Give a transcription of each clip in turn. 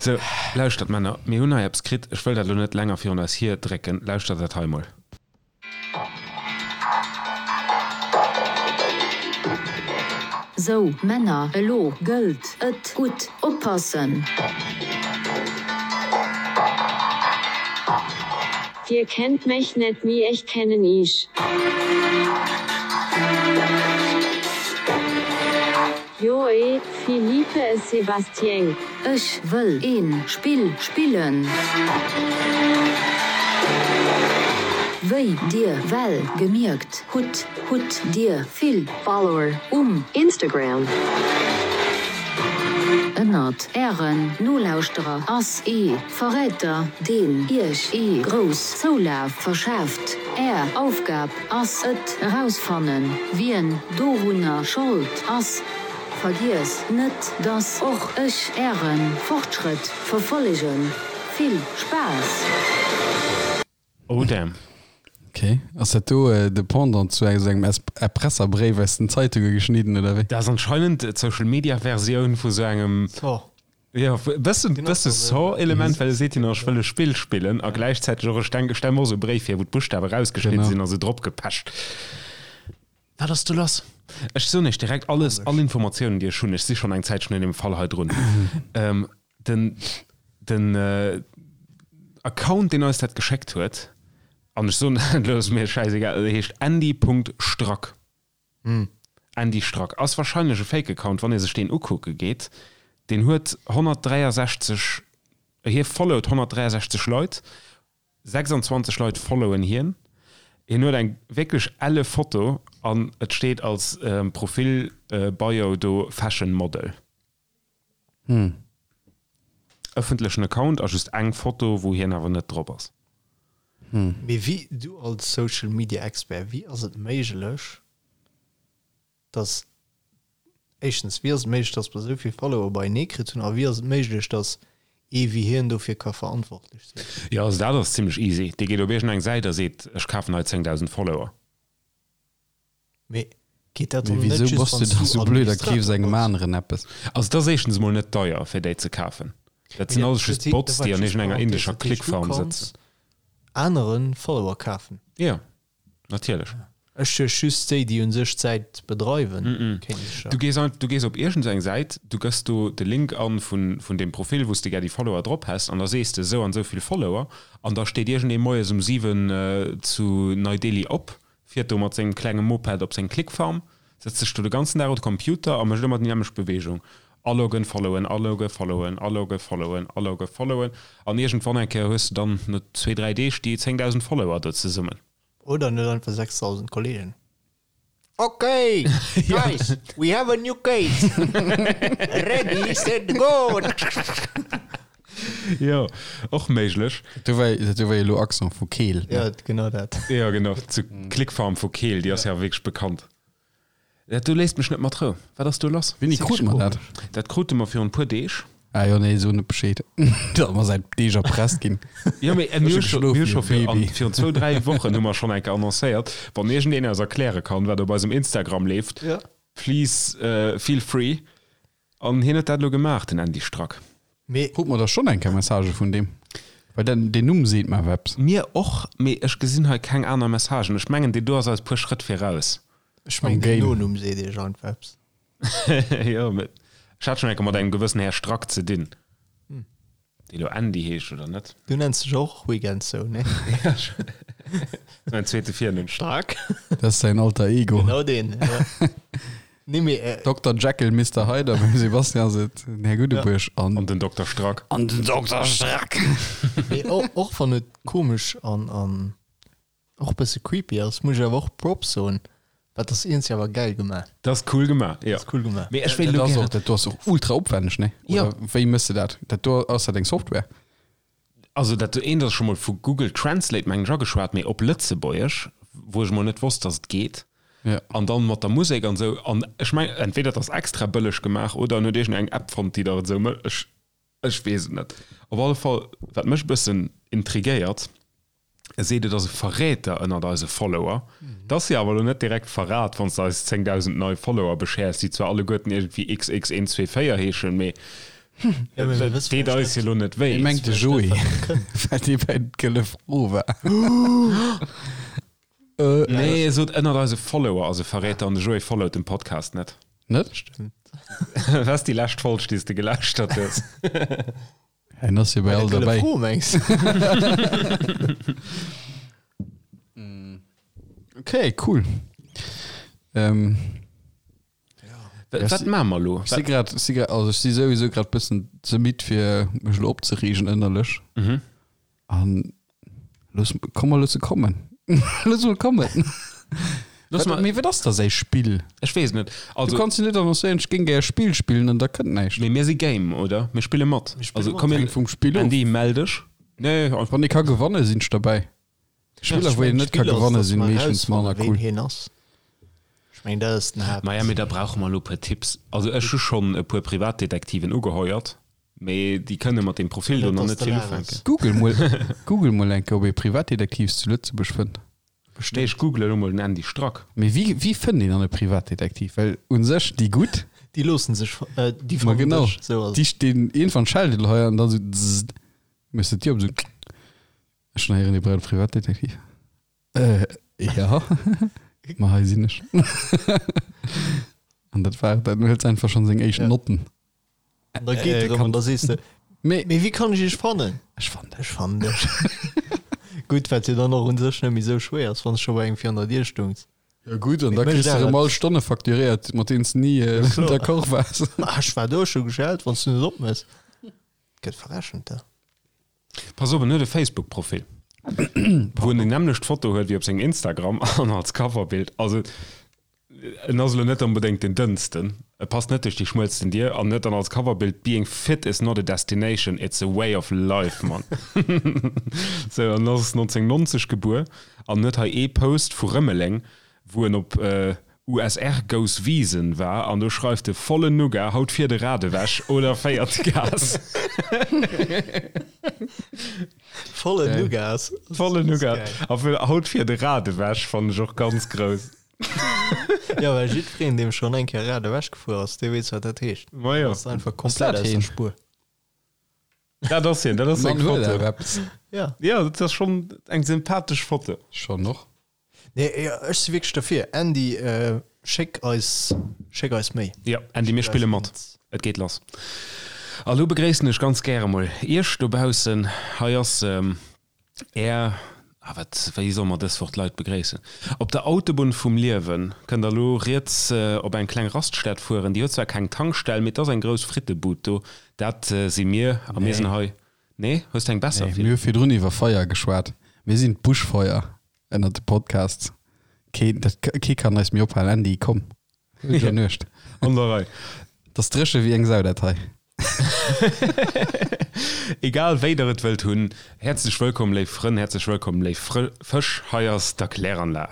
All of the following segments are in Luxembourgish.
Sou, lauschtert Männer, mir hunn hei eppes kritt, ech wëll dat elo net länger virun eis hierdrécken, lauschtert dat hei mol. Sou, Männer, elo gëllt et, gutt oppassen! Dir kennt mech net, mee ech kennen iech. Joé, Philippe et Sébastien. Ech wëll een Spill spillen. Wéi dir well gemierkt hutt, hutt dir vill Follower um Instagram. Ënnert ären Nolauschterer ass ee Verräter, deen iech ee grouss Zoulaf verschaaft. Är Aufgab ass et erausfannen, wien dorunner Schold ass. Vergiesst net, dass och ech äre Fortschrëtt verfollegen. Vill Spaass! Oh damn. Ok, ass dat do de Pendant zu esou engem Erpresserbréif aus den Zeitunge geschnidden oder wéi? Dat ass anscheinend d'Social Media Versioun vu sou engem. Jo, e bëssen, bësse Saw-Element, well e seet jo nach, ech wëll e Spill spillen a gläichzäiteg och, ech denken, ech stelle mer och esou e Bréif vir, wou d'Buschtawe rausgeschnidde sinn a sou drop gepecht. Wat ass do lass? Ech soen iech direkt alles, all Informatiounen, déi ech hunn. Ech si schonn eng Zäitchen un deem Fall hei drun. Den, den Account, deen eis dat geschéckt huet, an ech soen dat elo, ass mir schäisegal, heescht andy.strack. Andy Strack, ass wahrscheinlech e Fake Account, wann ee sech deen ukucke geet. Deen huet 163, hie followt 163 Leit, 26 Leit followen hien. Hien huet eng wierklech elle Foto an et steet als Profil Bio do Fashion Model. Ëffentlechen Account a just eng Foto wou hien awer net drop ass. Mee wéi, du als Social Media Expert, wéi ass et méiglech, dass, éischtens, wéi ass et méiglech, dass mer esou vill Follower beienee kritt hunn a wéi ass et méiglech, dass ee wéi hien dofir ka verantwortlech sinn? Jo, also dat ass zimlech easy. Dee geet op iergendeng Säit a seet, ech kafen hei 10.000 Follower. Mee geet dat dann Mee net wisou just, bass du wann s da du sou blöd a keefs Administrator engem bass? aneren eppes? Also et ass éischtens emol net deier fir déi ze kafen. Dat Mee sinn dat, alles just dat, Bots, dat war déi an just iergendenger Parenthèse, indescher dat heescht du Clickfarm kanns sëtzen. anere Follower kafen? Jo, natierlech. Ech duecht just déi, déi un sech d'Säit bedreiwen, kéinte sech Du dat. gees ein, du gees op iergendeng Säit, du gëss do de Link an vun, vun deem Profil, wou s de gär déi Follower drop häss an da sees de esou an esou vill Follower an da steet iergendee moies um 7 zu Nei Delhi op Fiert do mat sengem klenge Moped op seng Clickfarm, sëtzt sech do de ganzen Dag un de Computer a mécht ëmmer déi nämmlecht Beweegung, aloggen, followen, aloggen, followen, aloggen, followen, aloggen, followen. An iergendwann eng Kéier hues de dann no zwee, dräi Deeg déi 10.000 Follower do zesummen. Oder en huet einfach 6.000 Kollegen. Ok, guys, we have a new case. Ready, set, go! Jo, och méiglech. Dat do war, dat do war jo elo Accent vu Keel, ne? Ja, genau dat. Jo, genau, zu Clickfarm vu Keel, déi ass jo wierklech bekannt. Dat do léisst mech net mat Rou. Wat ass do lass? Wéini krute mer dat? Dat krute mer virun e puer Deeg. Ah jo, nee, so net Bescheed. Dat mer säit Deeg erpresst ginn. Jo, mee mir hu scho, mir hu scho vir, an, virun zwou, dräi Wochen hu mer schonn eng Kéier annoncéiert, wann iergendeen eis erkläre kann, wat op eisem Instagram leeft, please feel free. An hien huet dat elo gemaach, den Andy Strack. Mee. Krut mer da schonn eng Kéier Messagë vun deem? Well den, deen Numm seet mer awer eppes. Mir och, mee ech gesinn hei keng aner Messagen. Ech mengen, deen do ass eis puer Schrëtt viraus. Ech mengen, den Nonumm seet iech einfach eppes. Jo, mee ech hat schonn eng Kéier mat engem gewëssen Här Strack ze dinn. Dee lo Andy heescht, oder net? Du nenns dech och Weekends sou, nee? Ja, mäin zweete Virnumm. Stark. Dat ass säin Alter Ego. Genau deen, ja. Nee, mee. Äh, Dokter Jekyll, Mister Hyde a beim Sebastian ass et den Här Guddebuerg an. An den Dokter Strack. An den Dokter Strack. Mee och wann et komesch an, an Och bësse creepy ass, muss ech awer och Props soen, dat ass iergendwéi awer gäil gemaach. Dat ass cool gemaach, jo. Dat ass cool gemaach. Mee ech wéilt elo gären. Dat do ass och ultra opwänneg, nee? Jo. Oder wéi mëss de dat? Dat do, ass dat eng Software? Also dat do eent ass scho mol vu Google Translate mengen ech ageschwat, mee op Lëtzebuergesch, wou ech mol net wosst, dass et geet. Jo. An dann mat der Musek an esou. An ech mengen, entweder et ass extra bëlleg gemaach oder en huet iergend eng App fonnt, déi der et esou mécht. Ech, ech weess et net. Op alle Fall, wat mech e bëssen intriguéiert, E seet, et ass e Verräter ënnert eise Follower. Dat ass jo awer elo net direkt Verrat, wann s de eis 10.000 nei Follower beschäers, déi zwar alleguerten iergendwéi XX124 heeschen, mee. Ja, mee mir wësse Deet vläicht eis net. jo lo net wéi. Hie mengt de Vläicht net, Joé, wat nach kënnt. well dee bei d'Gëlle Fro war. Nee, e sot ënnert eise Follower ass e Verräter an de Joé followt den Podcast net. Net? Stimmt. Wat ass déi lescht Folg, déi s de gelauschtert hues? Hien ass jo bei Bei der all Gëlle derbäi. Fro, mengs de? Okay, cool. Ähm, Wat maache mer elo? Ech si grad, si grad, also ech si souwisou grad bëssen ze midd fir mech elo opzereegen ënnerlech. Mhm. An looss, komm mer loosse kommen. Looss mol kommen. Looss Wat, mal, mee wat ass da säi Spill? ech weess net. Du Also, kanns jo net annoncéieren, ech géing gär e Spill spillen an da kënnt näischt. mee mir si game, oder? Mir spille mat. Mir spille Also mat. komm, mir, Hänkt vum Spill of. Andy, mell dech. Nee, einfach. Wann ee ka gewanne sinn ech derbäi. Spiller wou een net ka gewanne sinn meeschtens manner cool. cool. Hien ass. Ech meng dat ass den Haapt. Maja, mee da brauche mer elo e puer Tipps. Also ech hu schonn e puer Privatdetektiven ugeheuert, mee déi kënne mat deem Profil do nach net vill ufänken. Google mol, Google mol eng Kéier ob ee Privatdetektivs zu Lëtzebuerg fënnt. Nee, ech googlen elo mol den Andy Strack. Mee wéi, wéi fënnt een dann e Privatdetektiv? Well un sech déi gutt, Déi loossen sech, déi ma fannen genau, dech, sou ass déi et. stinn iergendwann schellt et hei an da sou zzzt, méchs de d'Dier op, sou. Ech hunn héieren, Dir braucht e Privatdetektiv. Äh, ja. Ma hei sinn ech. An dat war et. Dann huet se einfach schonn seng éischt Ja. Notten. An da geet Äh, erëm kann- an da sees de, Mee mee wéi kann ech iech fannen? ech fannen dech. Ech fannen dech. Gutt, wat jo dann och un sech net méi sou schwéier ass, wann s scho bei engem virun der Dier stungs. Ja gutt, an da Mee kriss mécht de awer erëm all eppes. Stonne facturéiert, mat deenen s de ni Ja, kloer. d'accord waars. Ah, ech war do, ech hu geschellt, wann s du net opmëss. Gëtt verrechent da. Pass op, en huet e Facebook-Profil, wou en déi nämmlecht Foto huet wéi op sengem Instagram an als Coverbild. Also en ass elo net onbedéngt den dënnsten, e passt net duerch déi schmuelsten Dier an huet dann als Coverbild Being fit is not a destination, it's a way of life, Mann. Sou, an ass 1990 gebuer an huet hei ee Post vu Rëmeleng, wou en op USR goes Wiesen war an do schreift e Vollen Nougat, haut fiert e Rad ewech oder féiert Gas. Vollen Nougat. Vollen Nougat. A fir haut fiert e Rad ewech fannen ech och ganz grouss. Jo, well jiddwereen, deem schonn eng Kéier Rad ewech gefuer ass, dee weess, wat dat heescht. Ma jo. Ass einfach komplett dat aus der heen? Spuer. Dat ass hien, dat ass seng Mann huet Foto. awer eppes. Ja. Jo, dat ass schonn eng sympathesch Foto. Schonn och. Nee, jo, ech si wierklech derfir. Andy, schéck eis, schéck eis méi. Jo, Andy, mir spille mat. Et geet lass. A lo begréissen ech ganz gäre mol Iech dobaussen. Hei ass Är, ah wat, wéi solle mer dës Woch d'Leit begréissen? Op der Autobunn vum Liewen kënnt der lo riets op eng kleng Raststätt fueren. Déi huet zwar keng Tankstell, mee et ass eng grouss Frittebud do. Dat si mir a mir sinn hei. Nee, hues de eng besser? Nee, mir hu virdrun iwwer Feier geschwat. Mir sinn d'Buschfeuer ënnert de Podcasts. Keen, dat, kee kann eis méi ophalen. Andy, komm. Gudde Nuecht. An der Rei. Dat ass dréche wéi eng Sau, dat hei. Egal wéi der et wëllt hunn, häerzlech wëllkomm léif Frënn, häerzlech wëllkomm léif Fësch, hei ass d'Erkläranlag.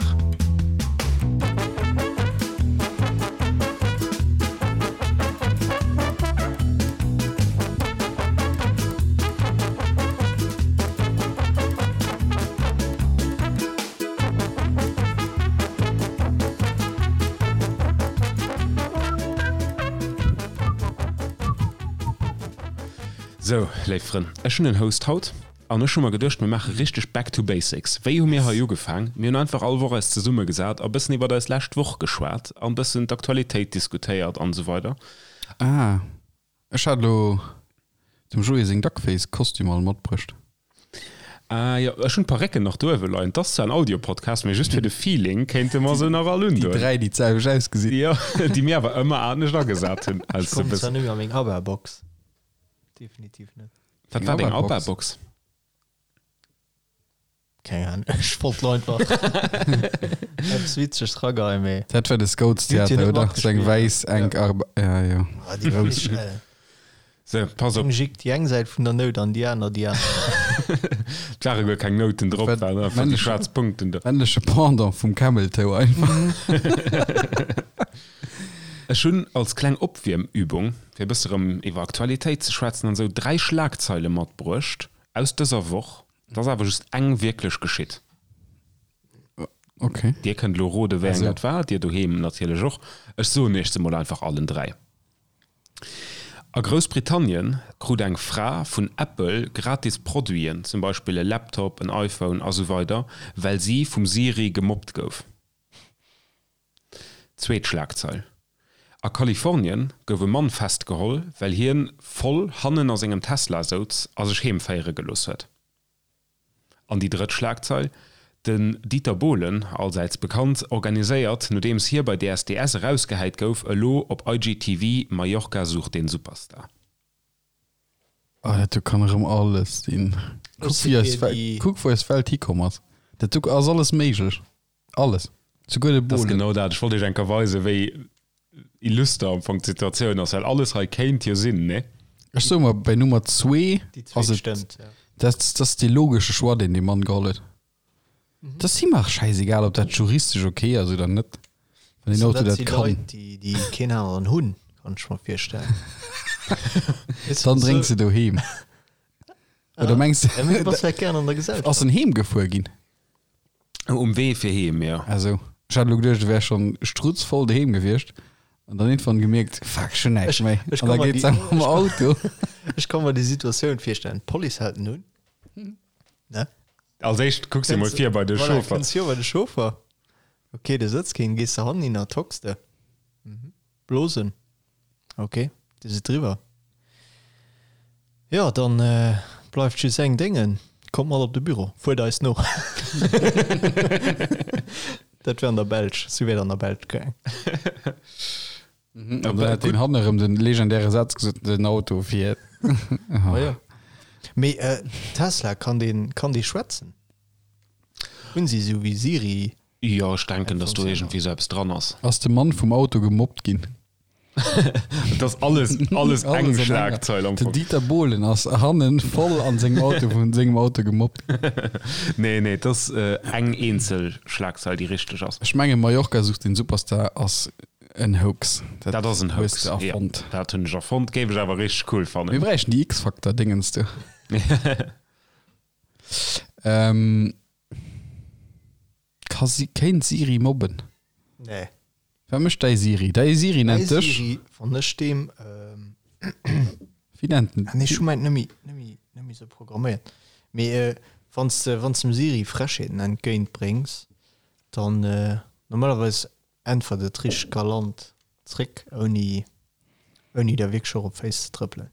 Sou, léif Frënn, ech hunn en Host haut an ech hu mer geduecht, mir maache richteg Back to Basics. Wéi hu mir hei ugefaang? Mir hunn einfach all Woch eis zesummegesat a bëssen iwwert eis lescht Woch geschwat an bëssen d'Aktualitéit diskutéiert an esou weider. Ah, ech hat elo dem Joé seng Duckface-Kostümer all matbruecht. Ah jo, ech hunn d'Parécken nach do uewe leien. 't ass zwar en Audio-Podcast, mee just fir de Feeling kéinte mer se nach all Déi undoen. 3, déi d'selwecht ausgesinn. Jo, déi mir awer ëmmer anescht agesat hunn. Ech kommen zwar net méi a meng ABBA-Box. Definitiv net. Wat war deng ABBA-Box? ABBA-Box? Keng Ahnung, ech wollt lo einfach eppes Witzeges rageheien, mee. Dat war de Déi huet jo Scouts-Theater, net oder? Sou eng matgespillt. wäiss, enk Arb. Ja, jo. Ah, déi grouss. So, pass op. Eng jick déi eng Säit vun der Nout an déi aner déi aner. Et ware guer keng Nouten drop, Wat- waren einfach déi männleche- schwaarz Punkten do. Männleche Pendant vum Camel Toe einfach. Ech hunn als kleng Opwiermübung, fir e bësse rëm iwwer Aktualitéit ze schwätzen an esou, 3 Schlagzeile matbruecht aus dëser Woch. Et ass awer just eng wierklech geschitt. Okay. Dir kënnt elo rode wéi eng Also. dat war, dir doheem natierlech och. Ech soen iech se mol einfach allen 3. A Groussbritannien krut eng Fra vun Apple gratis Produiten, zum Beispill e Laptop, en iPhone a sou weider, well si vum Siri gemobbt gouf. Zweet Schlagzeil, A Kalifornien gouf e Mann festgeholl, well hien voll hannen a sengem Tesla souz a sech heem féiere gelooss huet. An déi drëtt Schlagzeil, Den Dieter Bohlen, allsäits bekannt, organiséiert, nodeems hie bei DSDS erausgehäit gouf, elo op IGTV Mallorca sucht den Superstar. Oh, dat do kann erëm alles sinn. Kuck, wéi eis Welt, kuck, wou eis Welt hikomm ass. Dat do ass alles méiglech. Alles. Souguer de Bohlen. Dat ass genau dat. Ech wollt iech eng Kéier weisen, wéi illuster am Fong d'Situatioun ass, well alles hei kéint jo sinn, ne? Ech soe mer, bei Nummer zwee ass et, dat ass dee logesche Choix, deen dee Mann geholl huet. Et ass him och schäisegal, ob dat juristesch ok ass oder net, wann deen Auto dat kann. Dat si Leit, déi keen aneren hunn, kann ech mer virstellen. Dann drénks de doheem. Oder mengs de, ass en heem gefuer ginn? Um Wee fir heem, jo. Ah sou. Ech hat elo geduecht, e wär schonn strutzvoll doheem gewiescht an dann iergendwann gemierkt, fuck, ech hunn näischt méi. An da geet se mam Auto. Ech ka mer déi Situatioun virstellen, D'Police hält en un, ne? Als éischt kucks de mol vir bei de Chauffer. Voilà, kënns vir bei de Chauffer. Ok, do sëtzt keen. Gees de hannen hin a tocks de. Blosen. Ok, dir sidd driwwer. Jo, dann bleift just eng Déngen, kommt mat op de Büro, fuert eis no. Dat wär an der Belsch, sou wär et an der Belsch gaang. An dann hätt deen hannen erëm den legendäre Saz gesot, den Auto fiert. Ah jo. Mee Tesla, kann deen, kann dee schwätzen? Hunn si sou wéi Siri? Jo, ech denken, dass do iergendwéi sou eppes dran ass. Ass de Mann vum Auto gemobbt ginn? Et ass alles, alles eng Schlagzeil am Fong. Den Dieter Bohlen ass hannen voll an sengem Auto vun sengem Auto gemobbt ginn. Nee, nee, et ass eng eenzel Schlagzeil, déi richteg ass. Ech mengen Mallorca sucht den Superstar ass en Hoax. Dat ass en Hoax, jo. Dat hunn ech erfonnt, géif ech awer richteg cool fannen. Mir bräichten déi X-Factor-Dingens do. Ka si, kéint Siri mobben? Nee. Wat mécht däi Siri? Däi Siri nennt dech? Siri, wann ech deem. Wéi nennt en? Ah nee, ech hu mäint net méi, net méi, net méi sou programméiert. Mee wann s de, wann s de dem Siri Frechheeten entgéint bréngs, dann normalerweis äntwert et richteg galant zréck, ouni, ouni der wierklech och op d'Féiss ze trëppelen.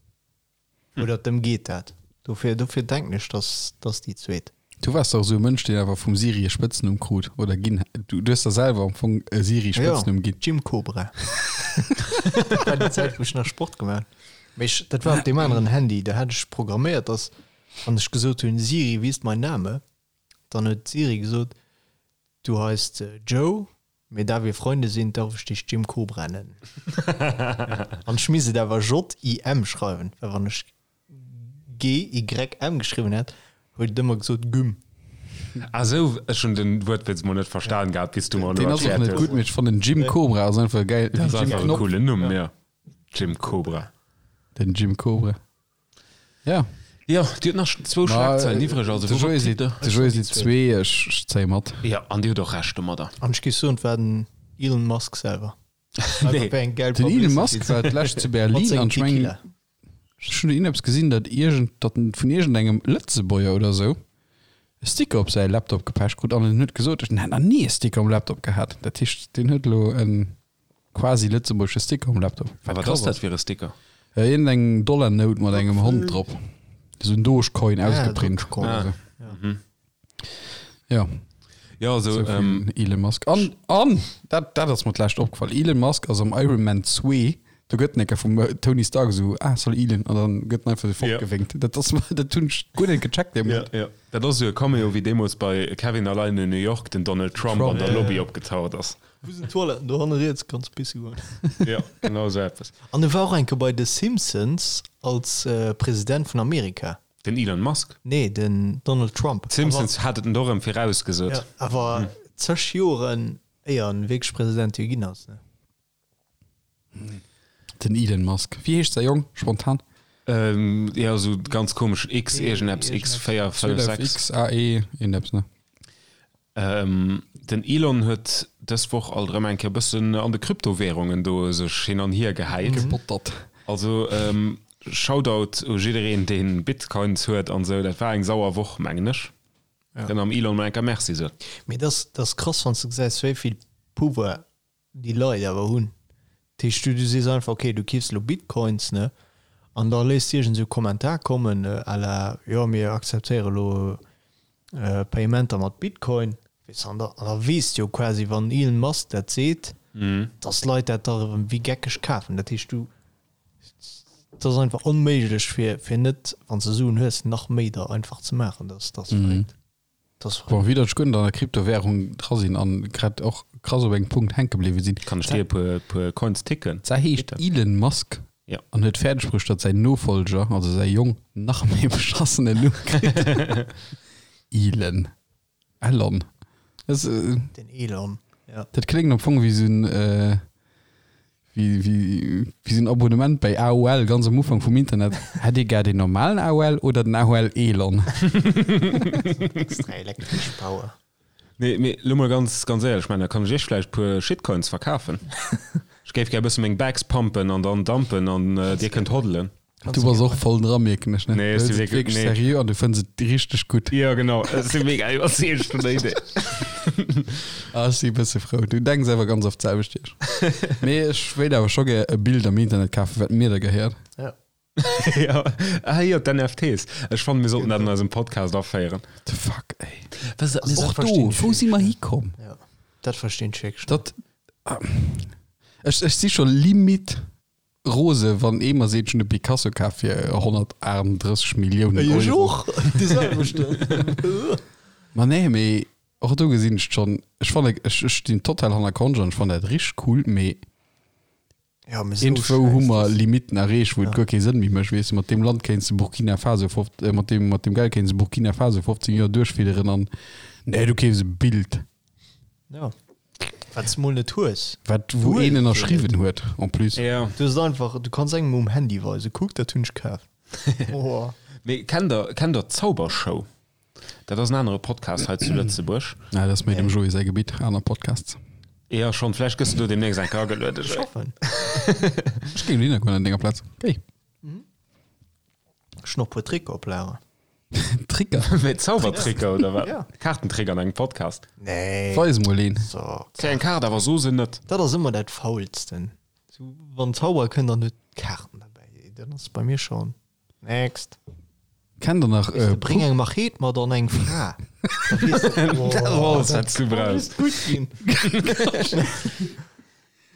Oder dem geet dat. Dofir, dofir denken ech, dass, dass déi zweet. Du waars dach esou e Mënsch, deen awer vum Siri e Spëtznumm krut, oder ginn. Du, du hues der selwer am Fong e Siri-Spëtznumm ginn. Jim Cobra. Dat war déi Zäit, wou ech nach Sport gemaach hunn. Mee ech, dat war op deem aneren Handy, do hat ech programméiert, dass, wann ech gesot hunn, Siri, wie ist mein Name? Dann huet d'Siri gesot, Du heist Joe, Mee da wir Freunde sind, darf ech dech Jim Cobra nennen. An ech misst et awer J-I-M schreiwen, well wann ech G-Y-M geschriwwen hätt, huet et ëmmer gesot Güm. Ah sou, ech hunn den Wuertwitz mol net verstan gehat, bis du mer elo erkläert hues. Deen ass och net gutt, mee ech fannen Jim Cobra ass einfach e gäil, Dat ass einfach e coolen Numm, jo. Jim Cobra. Den Jim Cobra. Ja. Jo, Dir hutt nach zwou Schlagzeilen iwwreg, also De Joé seet, de Joé seet zwee, ech zéie mat. Jo, an Dir hutt och Recht domadder. An ech géif soen, et war den Elon Musk selwer. Nee. Den Elon Musk war d'lescht zu Berlin an ech mengen, ech hunn iergendeppes gesinn, datt iergend, datt en vun iergendengem Lëtzebuerger oder esou e Sticker op säi Laptop gepecht krut an en huet gesot, en hätt nach ni e Sticker um Laptop gehat. Dat heescht, deen huet elo en. Quasi lëtzebuergesche Sticker um Laptop. A wat ass dat fir e Sticker? Iergend eng Dollarnout mat engem Hond drop. Esou en Dogecoin ausgeprint. Ah. Mhm. Ja. Ja, also, so ähm, Elon Musk. An, an dat, dat ass mer d'lescht opgefall. Elon Musk ass am Iron Man 2, do gëtt en eng Kéier vum äh, Tony Stark esou, ah, salut Elon, an dann gëtt en einfach esou fortgewénkt. Ja. Dat ass, dat hunn ech guer net gecheckt dee Moment. Ja, ja. Dat ass esou e Cameo wéi deemools bei Kevin allein in New York den Donald Trump, Trump an der Lobby opgetaucht ass. Wou sinn d'Toiletten? Do hanne riets kanns pisse goen. Jo, genau esou eppes. An e war och eng Kéier bei The Simpsons als President vun Amerika. Den Elon Musk? Nee, den Donald Trump. D'Simpsons hat et en och erëm virausgesot. Jo, awer zeg Joren éier en wierklech President jo ginn ass, ne? Den Elon Musk. Wéi heescht säi Jong spontan? Jo, esou ganz komesch X iergendeppes, X 4, 5, 6. X, A, E, iergendeppes, ne? Den Elon huet dës Woch alt erëm eng Kéier e bëssen an de Kryptowährungen do sech hin an hier gehäit. Gebottert. Also Shoutout u jiddereen deen Bitcoins huet an sou, dat war eng sauer Woch mengen ech. Kënnt am Elon mol eng Kéier Merci soen. Mee dat ass krass wann s de gesäis wéi vill Pouvoir déi Leit awer hunn. Dat heescht du du sees einfach ok du keefs elo Bitcoins ne an da léiss de iergend esou Kommentar kommen à la jo mir akzeptéiere elo Payementer mat Bitcoin weess de an da an da weess de jo quasi wann Elon Musk dat seet dass d'Leit dat da erëm wéi geckeg kafen. Dat heescht du et ass einfach onméiglech fir fir net wann s de Suen hues nach méi der einfach ze maachen. Dat ass verréckt. Bon, wéi datt ech guer net an der Kryptowährung dra sinn an grad och krass op engem Punkt hänke bliwwe sinn. Kann ech dir e puer, puer Coins ticken? Zwar heescht Elon Musk Ja. an huet fäerdeg bruecht, datt säin Nofolger, also säi Jong, nach méi beschassenen Numm kritt. Elon. Elon. Das, äh, Den Elon, ja. Dat kléngt am Fong wéi sou en, äh, wéi, wéi, wéi sou en Abonnement bei AOL ganz am Ufank vum Internet. Hätt Dir gär den normalen AOL oder den AOL Elon? Extra elektresch Power. Nee, mee lo mol ganz, ganz éierlech, ech mengen, da kann ech Iech vläicht puer Shitcoins verkafen. Ech géif gär e bësse meng Bags pumpen an dann dumpen an Dir kënnt hodlen. Du bass och voll dra, mierken ech, ne? Nee, ech si wierklech, nee. Seriö an du fënns et richteg gutt. Jo, genau, ech si mega iwwerzeegt vun der Idee. Ah, ech si e bësse frou. Du denks awer ganz oft d'selwecht wéi ech. Mee ech wéilt awer scho gär e Bild am Internet kafen, wat mir da gehéiert. Ja. Ja, ah jo, d'NFTs. Ech fannen, mir sollten dat an eisem Podcast aféieren. What the fuck, ey. Was, also, och do, wou si mer hikomm? Ja, dat verstinn ech wierklech net. Dat, ech, ech si scho limit Rose wann ee mer seet, ech hunn e Picasso kaf fir 138 Milliounen Euro. Ech och, dee selwechten. Ma nee, mee och do gesinn ech schonn, ech fanne, ech ech stinn total hanner Conge an ech fannen dat richteg cool, mee Ja, mee sou iergendwou hu schäiss mer Limitten erreecht, wou et guer kee Sënn méi mécht, weess de, mat deem Land kéints de Burkina Faso fof, mat deem mat deem Geld kéints de Burkina Faso 15 Joer duerchfidderen an nee, du keefs e Bild. Ja. Wat s mol net hues. Wat wou een ënnerschriwwen huet en plus. Ja. Du hues et einfach, du kanns engem um Handy weisen, kuck dat hunn ech kaf. Oh. Mee kennt der, kennt der d'Zaubershow? Dat ass en anere Podcast hei zu Lëtzebuerg. Ja, dat ass méi dem Joé säi Gebitt, aner Podcasts. Ja schonn, vläicht gëss de do deemnächst eng Kéier agelueden, Ech Joé. hoffen. Ech géing dohinner goen an denger Plaz. Géi. Ech hunn och puer Tricker op Lager. Tricker? Wéi Zaubertricker oder wat? Ja. Kaartentrick an engem Podcast. Nee. Weis mol een. So. Kréi eng Kaart, awer so se net. Dat ass ëmmer dat Faulsten. So, wann Zauberer kënnt an huet Kaarten derbäi, dann ass bei mir schon next. Kennt der nach äh, Bring eng Machet mat an eng Fra. Da weess de, oh, Dat ass alles, wat s du kann brauchs. just gutt ginn.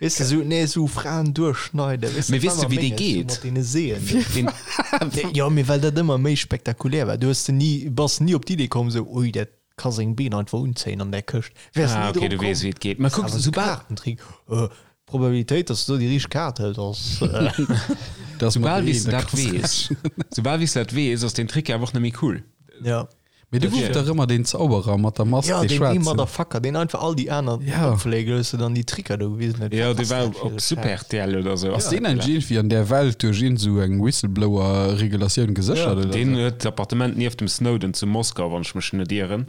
Weess de, sou, nee, sou Fraen duerchschneiden, weess de, Mee weess de, wéi dee mat geet? deene Seeën. Deen, Jo, mee well dat ëmmer méi spektakulär war. Du hues de ni, bass ni op d'Idee komm, sou, ui, dat ka seng Been einfach unzéien an där Këscht. Wäers ah, ni okay, drop du komm. weess, wéi et geet. Mä kuck, Awer sou soubal, Kaartentrick, äh, d'Probabilitéit, dass du do déi richteg Kaart hëls, ass, äh, Das soubal mat wéi s de der dat krass weess, soubal wéi s de dat weess, ass deen Trick jo awer och net méi cool. ja. Mee du gouf dach ëmmer deen Zauberer mat der Mask, Ja, dee deen ee schwaarzen. Motherfucker, deen einfach all déi aner Ja. opfléige loosse dann déi Tricker do gewisen huet. Jo, Wat dee ass war dat fir op e Super Schäiss? RTL oder sou. Ass deen eigentlich iergendwéi an där Welt duerch iergend sou eng Whistleblower-Regulatioun geséchert oder Deen sou? huet d'Appartement nieft dem Snowden zu Moskau, wann ech mech net ieren.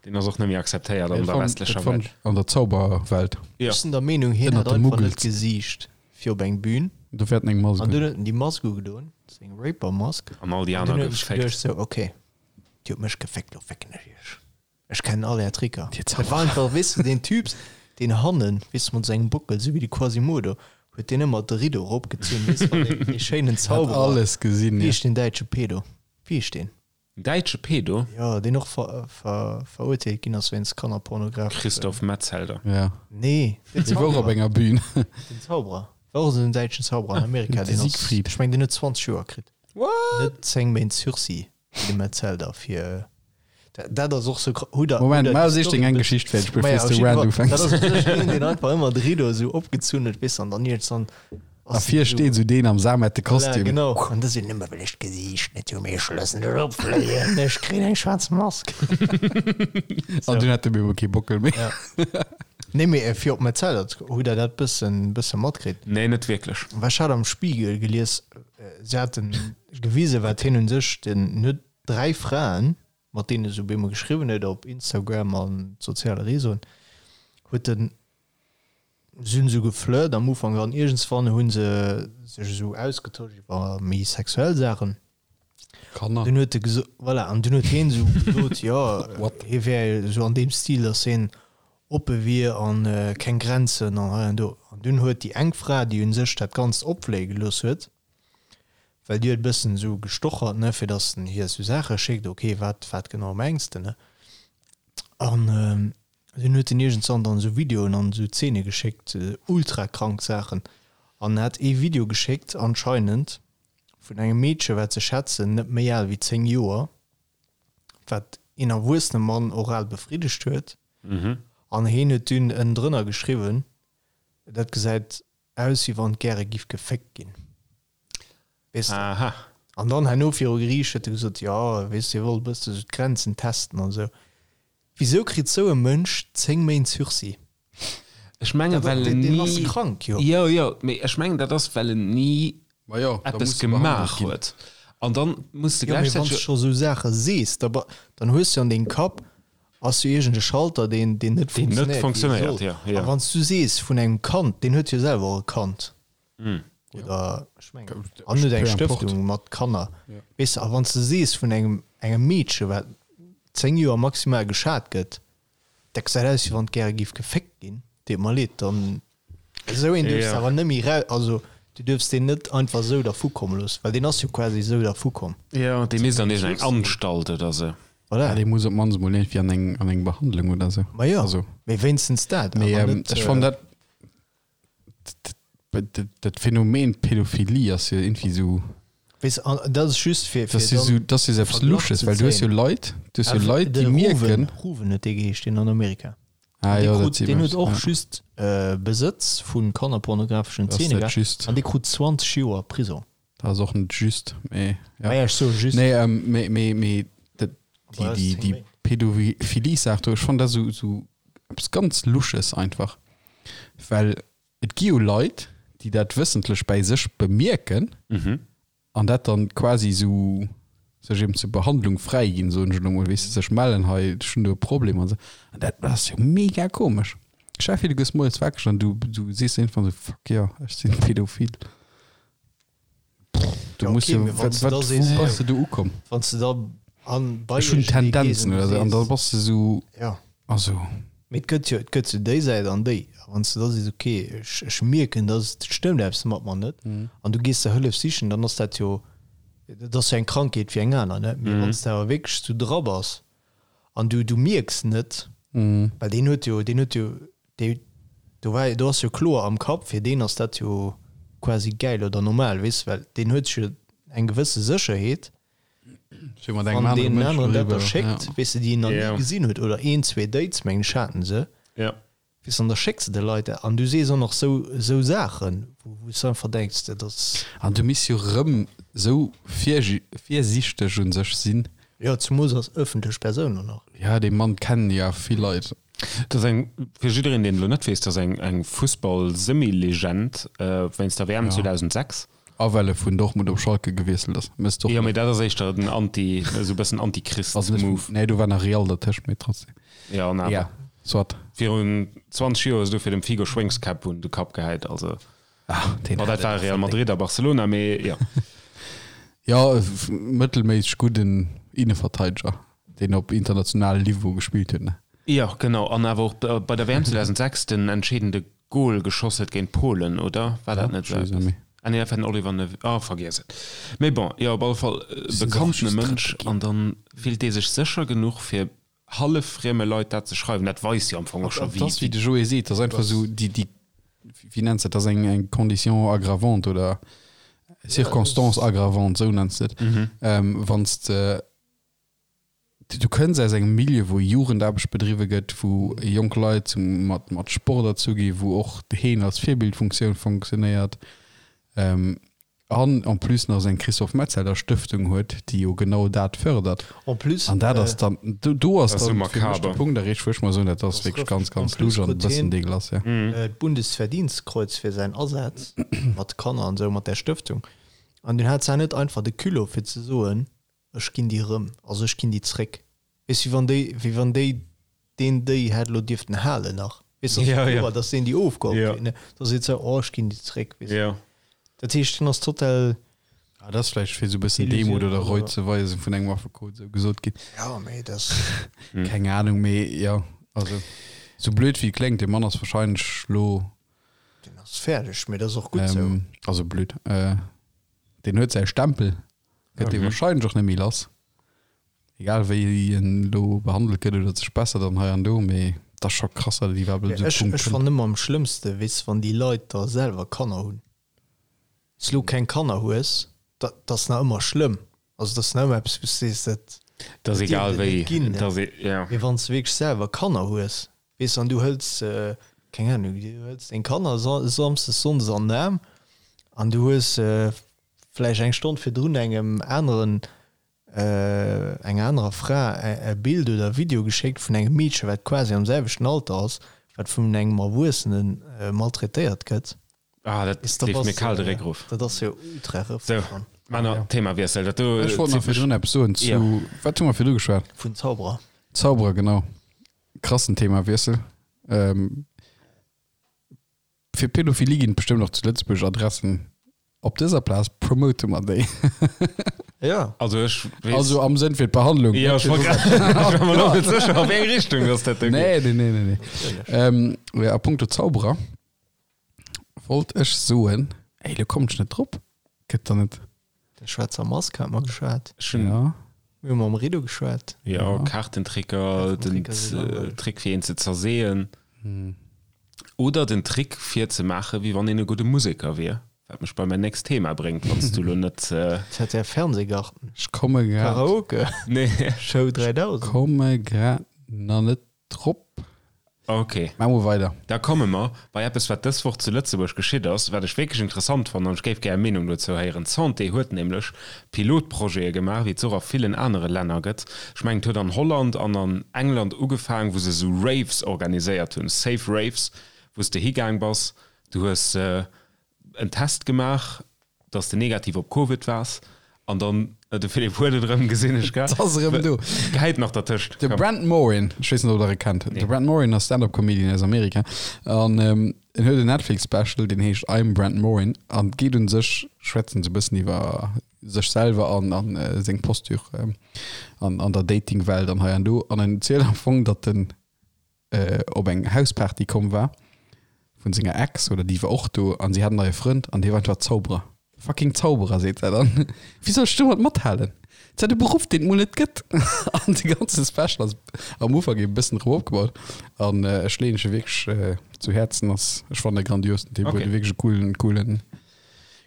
Deen ass och net méi akzeptéiert an Dat der fand- westlecher dat fand Welt. ech an der Zauberwelt. Ja. Ech sinn der Meenung, hien Ënnert hat de einfach net Muggels. gesicht fir op eng Bühn. Do wäert en eng Mask An dunn un. huet en déi Mask ugedoen, seng Raper-Mask. An all déi An aner dunn huet en sech geféckt. geduecht sou, okay, Dir hutt mech geféckt, lo fécken ech iech. Ech kennen all är Tricker. Dir Dat war einfach, weess de, deen Typs, deen hannen, weess de, mat sengem Bockel, sou wéi de Quasimodo, huet deen ëmmer de Rideau eropgezunn, weess de, wann deen, dee schéinen Hat Zauberer, alles gesinn, wéi ja. heescht deen däitsche Pedo? Wéi heescht deen? En däitsche Pedo? Jo, deen och ver, ver, verurteelt ginn ass wéinst Kannerpornografeschen. Christoph Metzelder. Ja. Nee, den Dee wor op Zauberer. enger Bühn. Den Zauberer. War och esou en däitschen Zauberer an Amerika, De deen ass, Siegfried. ech meng, deen huet 20 Joer kritt. What? Net 10 Méint Sursis. Wéi de Metzelder fir dat ass och sou hu der Moment, ma sich deng eng Geschicht fäerdeg bevir s de Rant ufänks. Dat ass een deen einfach ëmmer de Rideau esou opgezunn huet weess an dann iergendwann A vir steet esou deen am samette Voilà, Kostüm. genau. An da sinn ëmmer well ech d'Gesiicht net hu mee ech loossen dech opfléien, ech kréien eng schwaarz Mask. An dunn hat de bemol kee Bockel méi. Ja. Nee mee fir op Metzelder ze hutt der dat bëssen bësse matkritt? Nee, net wierklech. Well ech hat am Spiegel gelies, se haten gewisen, wat hien un sech, den huet 3 Fraen, mat deenen e sou bemol geschriwwen huet op Instagram an soziale Réseauen, huet en. Si hunn esou geflirt am Ufank an iergendswann hu se sech esou ausgetosch iwwer méi sexuell Saachen. Kanner. Dunn huet e geso voilà, an dunn huet hien esou gesot, jo, hie wär esou an deem Stil, datt hien oppe wier an keng Grenzen an hei an do. An dunn huet déi eng Fra, déi un sech dat Ganzt opfléie gelooss huet, well déi huet e bëssen esou gestochert, ne, fir datt en hir esou Saache schéckt, ok, wat, wat genau mengs de, ne? An dunn huet en iergendzwann dann esou Videoen an esou Zeene geschéckt, ultra krank Saachen. An hat ee Video geschéckt anscheinend vun engem Meedche wat se schätzen net méi al wéi 10 Joer, wat een erwuessene Mann oral befriddegt huet. An heen huet dunn ënnendrënner geschriwwen, dat gesäit aus wéi wann et gäre giff geféckt ginn. Weess de? Aha. An dann herno viru Geriicht huet e gesot, jo, weess de, hie wollt e bësse sou d'Grenzen testen an esou. Wisou kritt sou e Mënsch 10 Méint Sursis? Ech mengen, well en ni. Deen ass krank, jo. Jo, jo, mee ech mengen, dat ass, well en ni eppes gemaach huet. An dann muss de gläichzäiteg. Jo, mee wann s de scho sou Saache sees, da dann hues de an dengem Kapp ass jo iergend e Schalter, deen, deen net funktionéiert, wéi e soll. A wann s du sees vun engem Kand, deen huet jo selwer och e Kand. Oder ech mengen, an huet eng Stëftung mat Kanner. Weess de, a wann s de sees vun engem, engem Meedche wat 10 Joer maximal geschat gëtt, dat gesäit aus wéi wann et gäre géif geféckt ginn, deet mer leed, dann esou een duerfs de awer net méi rau, also du duerfs deen net einfach esou dervu komme loossen, well deen ass jo quasi esou dervu komm. Jo, dee misst an iergend eng Anstalt oder esou. Voilà. Ja, dee muss op d'mannst emol iergendwéi an eng, an eng Behandlung oder esou. Ma jo, also, mee wéinstens dat, awer net. Ech fannen dat. Dat Phänomen Pädophilie ass jo irgendwie sou. Weess, an dat ass just fir, fir dann. Dat ass jo sou eppes Lusches, well du hues jo Leit, du hues jo Leit, déi mierken. Ruven huet dee geheescht, deen an Amerika. Ah jo, dat seet mer. Deen huet och just Besëtz vu kannerpornografeschen Zeene gehat an dee krut 20 Joer Prisong. Dat ass och net just, mee jo. Maja, ech soe just. Nee, mee, mee, mee dat, déi, déi, déi Pädophilie-Saach do, ech fannen dat esou, esou eppes ganz Lusches einfach. Well et gi jo Leit, déi dat wëssentlech bäi sech bemierken an dat dann quasi esou sech eben zur Behandlung fräiginn, soen ech elo mol, weess de, sech mellen, hei, ech hunn do e Problem an esou. An dat ass jo mega komesch. Stell dir vir, du gëss moies wakereg an du, du sees iergendwann esou, fuck jo, ech sinn pädophil. Du Ja, muss okay, jo, mee wann wat, du wat, da wou sees, bass de do ukomm? Wann du da an bei Ech hunn iergendee gees Tendenzen an du oder sou, an da sees, bass de sou, ja. also. Mee et gëtt jo, et gëtt jo déi Säit an déi. A wann s du da sees, okay, ech, ech mierken, dass et stëmmt eppes mat mer net, an du gees der Hëllef sichen, dann ass dat jo, dat ass jo eng Krankheet wéi eng aner, ne? Mee wann s de awer wierklech sou dra bass an du, du mierks net, well deen huet jo, deen huet jo, Dee, do war, do ass jo kloer am Kapp, fir deen ass dat jo quasi gäil oder normal, weess, well deen huet sech jo eng gewësse Sécherheet, Fir mat engem wann anere deen Mënsch aneren dat da doriwwer, schéckt, ja. weess de, déi en nach ni Ja. gesinn huet, oder een, zwee Dates, mengen ech, haten se, Ja. weess, an da schécks de de Leit dat an du sees och nach sou, sou Saachen, wou, wou s de einfach denks, dat ass. An du misst jo rëm sou virsiichteg un sech sinn. Jo, zumools als ëffentlech Persoun och nach. Ja, dee Mann kennen jo awer vill Leit. Dat ass eng, fir jiddereen, deen elo net weess, dat ass eng, eng Fussball-Semi-Legend wéinst der WM 2006. A well e vun Dortmund op Schalke gewiesselt ass. Méchs d'och Jo, mee dat ass éischter den Anti, esou e bëssen Anti-Christ-Move. Nee, do war nach Real dertëscht, mee trotzdem. Jo, an awer. Ja, soit. Virun 20 Joer hues du fir dem Figo Schwéngskäpp un de Kapp gehäit, also. Ah, deen hat dat war Real Madrid a Barcelona, mee jo. Jo, mëttelméisseg gudden Inneverteideger, deen op internationalem Niveau gespillt huet, ne? Jo, genau, an awer och bei der WM 2006 den entscheedende Gol geschoss huet géint Polen, oder? War dat net esou eppes? Ah nee, dat war den Oliver Neuville, ah, vergiess et. Mee bon, jo, op alle Fall e bekanntene Mënsch, an dann fillt dee sech sécher genuch, fir hallef frieme Leit dat ze schreiwen, dat weist jo am Fong och scho wéi. Dass, wéi de Joé seet, dass einfach esou déi, déi, wéi nenns de dat, dass eng, eng Condition aggravante oder Circonstance aggravante, esou nenns de et, wann s de, du kënns aus engem Milieu, wou Jugendaarbecht bedriwwe gëtt, wou jonk Leit zum, mat, mat Sport erzu gi, wou och d'Heen als Virbildfunktioun fonctionnéiert, An en plus nach seng Christophe Metzeler Stëftung huet, déi jo genau dat fördert. En plus, An dat ass dann, do, do ass Dat ass dann sou fir mech de makaber. Punkt erreecht, wou ech mer soen, dat ass Das wierklech rëfft. ganz, En ganz plus lusch an e krut bëssen hien dégueulasse, ja. d'Bundesverdienstkreuz fir säin Asaz mat Kanner an esou, mat där Stëftung. An dunn hat se net einfach de Culot fir ze soen, ech ginn déi erëm, also ech ginn déi zréck. Weess, wéi wann déi, wéi wann déi deen déi hätt elo dierften halen nach. Weess du, Ja, ja. dass deen déi ofgeholl Ja. kritt, ne? Da seet se, oh, ech ginn déi zréck, weess du. Ja. Dat heescht, hien ass total. Ah, dat ass vläicht fir esou e bëssen Demut oder Reu ze weisen vun engem Affekot, esou gesot ginn. Ja, mee dat. Keng Ahnung, mee jo, also esou blöd wéi et kléngt, dee Mann ass wahrscheinlech lo. Deen ass fäerdeg, mee dat ass och gutt esou. Also blöd, deen huet säi Stempel, gëtt dee wahrscheinlech och net méi lass, egal wéi en lo behandelt gëtt oder sech bessert an hei an do, mee et ass scho krass, datt et iwwerhaapt op esou e Ech Punkt ech kënnt. fannen ëmmer am schlëmmste, weess, wann déi Leit da selwer Kanner hunn. S lo keng Kanner hues, da dat ass nach ëmmer schlëmm. Also dat ass nach ëmmer eppes, wou s sees, dat Dat ass dat dierf egal et net wéi, ginn, dat ass, ja. Mee wann s de wierklech selwer Kanner hues, weess, an du hëls, keng Ahnung, du hëls deng Kanner samsdes, sonndes an den Aarm an du hues vläicht eng Stonn virdrun engem aneren, enger anerer Fra e Bild oder e Video geschéckt vun engem Meedche wat quasi am selwechten Alter ass, wat vun engem Erwuessene maltraitéiert gëtt. Ah, dat leeft mir kal de Réck erof. Dat ass jo ultra Sou, rëffeg. Männer, Themawiessel. Dat do Ech wollt nach zitt mech. virdrun eppes soen zu, Jo. wat hu mer virdru geschwat? Vun Zauberer. Zauberer, genau. Krassen Themawiessel. Fir Pädophilie ginn et bestëmmt och zu Lëtzebuerg Adressen. Op dëser Plaz promote mer déi. Ja. Also ech weess. Also am Sënn fir d'Behandlung. Ja, ech war grad, ech war mer lo net sécher, a wéi eng Richtung dass dat do geet. Nee, nee, nee, nee, nee. Ähm, ja, a punkto Zauberer wollt ech soen, ey, lo kommen ech net drop. Gëtt der net. Der schwaarzer Mask hat mer geschwat. Ech hunn. Ja. Mir hu mam Rido geschwat. Jo, Kaartentricker, den Trick fir een ze zerseeën. Oder den Trick fir ze maachen, wéi wann een e gudde Museker wier. Wat mech bei mäin nächst Thema bréngt, wann s du lo net. ZDF Fernsehgarten. Ech komme grad. Karaoke. Nee. Show 3000. Komme grad nach net Drop. Ok. Maa mol weider. Da komme mer bei eppes, wat dës Woch zu Lëtzebuerg geschitt ass, wat ech wierklech interessant fannen an ech géif gär Är Meenung dozou héieren. D'Santé huet nämlech Pilotprojete gemaach, wéi et se och a villen anere Länner gëtt. Ech mengen, et huet an Holland an an England ugefaang, wou se esou Raves organiséiert hunn, safe Raves, wou s de higaang bass, du hues en Test gemaach, dass de negativ op Covid waars an dann, de Philippe huet et erëm, gesinn ech grad. Et ass erëm do. Gehäit nach dertëscht. De Brent Morin, ech weess net ob der e kennt. De Brent Morin ass Stand-up Comedian aus Amerika an en huet en Netflix Special deen heescht I'm Brent Morin an geet un sech, schwätzen se e bëssen iwwer sech selwer an an seng Posture an an der Dating-Welt an hei an do an en zielt am Fong datt en op eng Hausparty komm war vun senger Ex oder déi war och do an si hat en neie Frënd an dee war einfach Zauberer. Fucking Zauberer, seet se dann. Wéi soll ech domat mathalen? Dat ass e Beruff, deen et mol net gëtt. An de ganze Special ass am Ufank e bëssen drop opgebaut an ech leeën e wierklech zu Häerzen. Ass, ech fannen e grandios, den Typ huet e wierklech e coolen, coolen,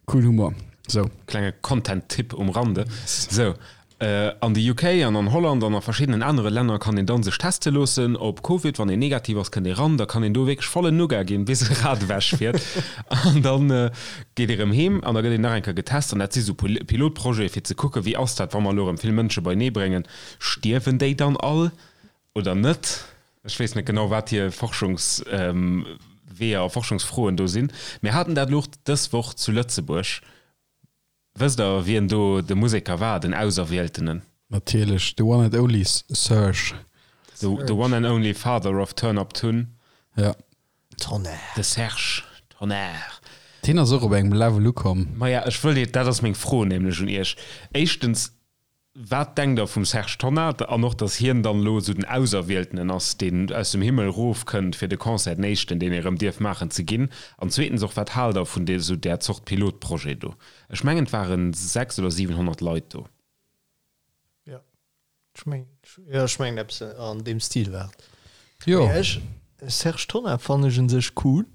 coolen Humor. Sou. Klenge Content-Tipp um Rande. Sou, An de UK an an Holland an a verschiddenen anere Länner kann een dann sech teste loossen op Covid. Wann een negativ ass, kënnt ee ran. Da kann een do wierklech vollen Nougat ginn, bis e Rad ewech fiert. An dann geet ee rëm heem an da gëtt een nach eng Kéier getest. An dat si sou Pilotprojete fir ze kucken, wéi ass dat, wa mer elo erëm vill Mënsche beienee bréngen, stierwen déi dann all oder net? Ech weess net genau, wat hir Forschungsweeër a Forschungsfroen do sinn. Mir haten dat elo och dës Woch zu Lëtzebuerg. Wësst der wien do de Museker war, den Auserwieltenen? Natierlech, the one and only Serge. The one and only father of Turn Up Tun. Ja. Tonnerre. De Serge Tonnar. Deen ass och op engem Level ukomm. Maja, ech wëll, dat ass meng Fro nämlech un iech. Éischtens, Wat denkt der vum Serge Tonnar an och datt hien dann elo esou den Auserwieltenen ass, deen aus dem Himmel rof kënnt fir de Concert, den éischten deen ee rëm dierf maachen, ze ginn? An zweetens och, wat haalt der vun esou där Zort Pilotprojet do? Ech mengen et waren 6 oder 700 Leit do. Jo, ech mengen, jo ech mengen eppes an deem Stil war et. Jo. Mee ech, Serge Tonnar fannen ech un sech cool.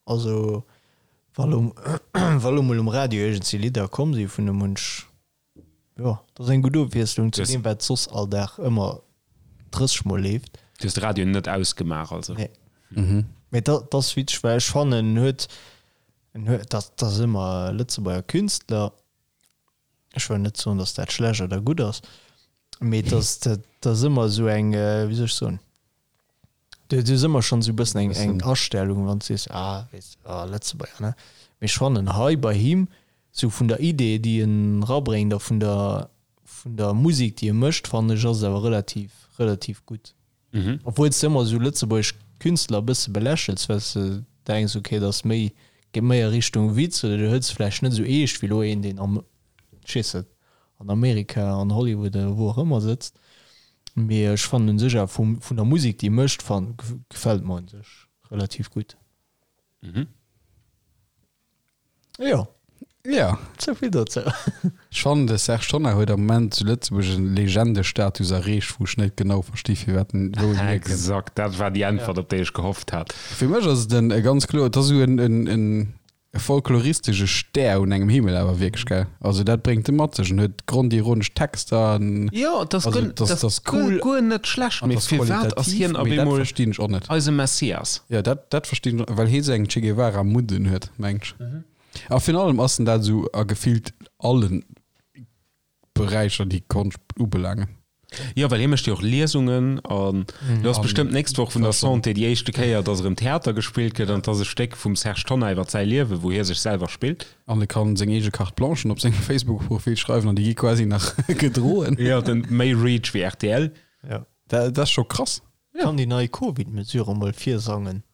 Also wa lo, wa lo mol um Radio iergendwéi Lidder komm si vun em, hunn ech Jo, dat ass eng gutt Ofwiesslung zu deem, wat soss all Dag ëmmer 30 Mol leeft. Du hues de Radio net ausgemaach also? Nee. Mee dat ass witzeg, well ech fannen, en huet, en huet, dat ass ëmmer Lëtzebuerger Künstler, ech wëll net soen, datt dat schlecht oder gutt ass, mee dat ass, dat ass ëmmer esou eng, wéi soll ech soen, Du hues ëmmer schonn esou e bëssen eng, eng Astellung, wann s du sees, ah, weess, ah, Lëtzebuerger, ne? Mee ech fannen hei bei him, sou vun der Idee, déi en rabréngt a vun der, vun der Musek, déi e mécht, fannen ech, ass et awer relativ, relativ gutt. Obwuel s de ëmmer esou lëtzebuergesch. Künstler e bësse belächels, well s de denks, okay, dat ass méi, geet méi a Richtung Witz oder du hëls vläicht net esou eescht wéi elo een, deen am, ech weess net, an Amerika, an Hollywood oder wou och ëmmer sëtzt. Mee ech fannen un sech awer vum, vun der Musek, déi e mécht, fan, gefält mer un sech relativ gutt. Mhm. Jo. Ja. Souvill dozou. Ech fannen de Serge Tonnar huet am Moment zu Lëtzebuerg en Legendestatus erreecht, wou ech net genau versti firwat en, wou en hierkënnt. Exakt, dat war déi Äntwert, op déi ech gehofft hat. Fir mech ass et en e ganz kloer, et ass esou en, en, en folkloristesche Stär un engem Himmel awer wierklech, gell? Also dat bréngt e mat sech, en huet grondironesch Texter, en, Jo, et ass also guer, et ass, et et ass ass cool guer net schlecht, an et mee ass firwat ass qualitativ, hien op mee dat eemol verstinn ech och net. eise Messias? Jo, dat, dat verstinn ech, well hie sou eng Che Guevara Mudden huet, mengt ech. A virun allem ass en dat esou a gefillt allen Beräicher, déi Konscht ubelaangen. Jo, well hie mécht jo och Liesungen an do ass bestëmmt d'nächst Woch vun der Santé déi éischte Kéier, dass erëm Theater gespillt gëtt an et ass e Stéck vum Serge Tonnar iwwer säi Liewen, wou hie sech selwer spillt. An e kann seng eege Carte Blanchen op sengem Facebook-Profil schreiwen an déi gi quasi nach gedroen. Jo, den méi Reach wéi rtl. Jo. Dat ass scho krass. Kann déi nei Covid-Mesure mol virsangen.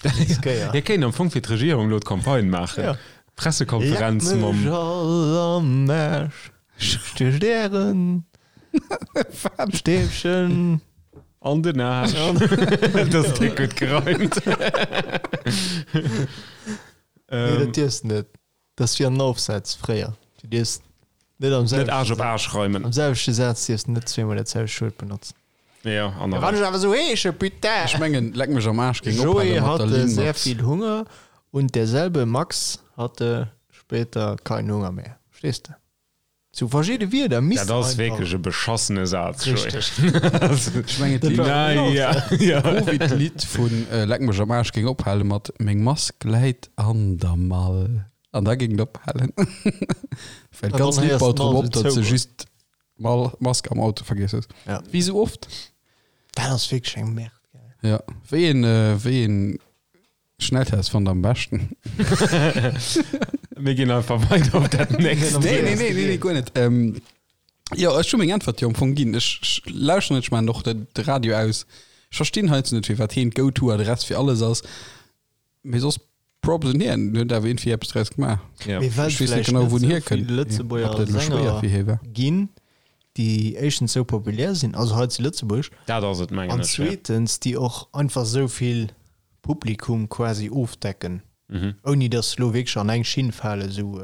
Hie kéint am Fong fir d'Regierung elo d'Campagne maachen. Ja. Pressekonferenz Leck mam. mech all am Aarsch, stiecht ären Stäbchen An den Aarsch. Dat ass déck gutt gereimt. Nee, dat dierfs de net. Dat ass wéi an den Aufsätz fréier. Du dierfs net am Net Aarsch op Aarsch reimen. Am selwechte Saz dierfs de net zweemol dat selwecht Wuert benotzen. Ja, an Ja, wann ech awer sou heesche, putain! Ech mengen, leck mech am Aarsch géing Joé ophale mat der hatte Linn sehr mat. viel Hunger und derselbe Max hatte später keinen Hunger mehr. Verstees de? Sou verschidde Wierder missten Dat ass einfach. wierklech e beschassene Saz, Joé. Richteg. Ech mengen, Dat war Na en ja, ja. Covid-Lidd vun Leck mech am Aarsch géing ophale mat Meng Mask läit an der Mall. An da géing et ophalen. Well An d'ganz dann Lidd héiers baut d'Mall drop op, sou datt se zougoen. just d'Mall, Mask am Auto vergiess hues. Ja. Wéi sou oft. Dat ass wierklech eng Merde, gell. Ja. Wéi een, wéi een Schnelltest fannt der am beschten? Mir ginn einfach weider op dat nächst. Nee, nee, nee, nee, nee, guer net. Ähm, jo, ech hu meng Äntwert jo am Fong ginn. Ech, ech lauschteren net, ech maachen och de, de Radio aus. Ech verstinn heiansdo net, firwat heen d'Go-to-Adress fir alles ass. Mee soss Props un hien, en huet awer iergendwéi eppes draus gemaach. Ja. Mee well Ech weess net vläicht genau, net wou en sou hierkënnt. vill Ob Lëtzebuerger dat elo schwéier Sänger fir hie war. ginn, déi éischtens sou populär sinn, also hei zu Lëtzebuerg, Dat ass et, mengen an ech, ja. zweetens déi och einfach sou vill Publikum quasi ofdecken, ouni dass se lo wierklech an eng Schinn falen, sou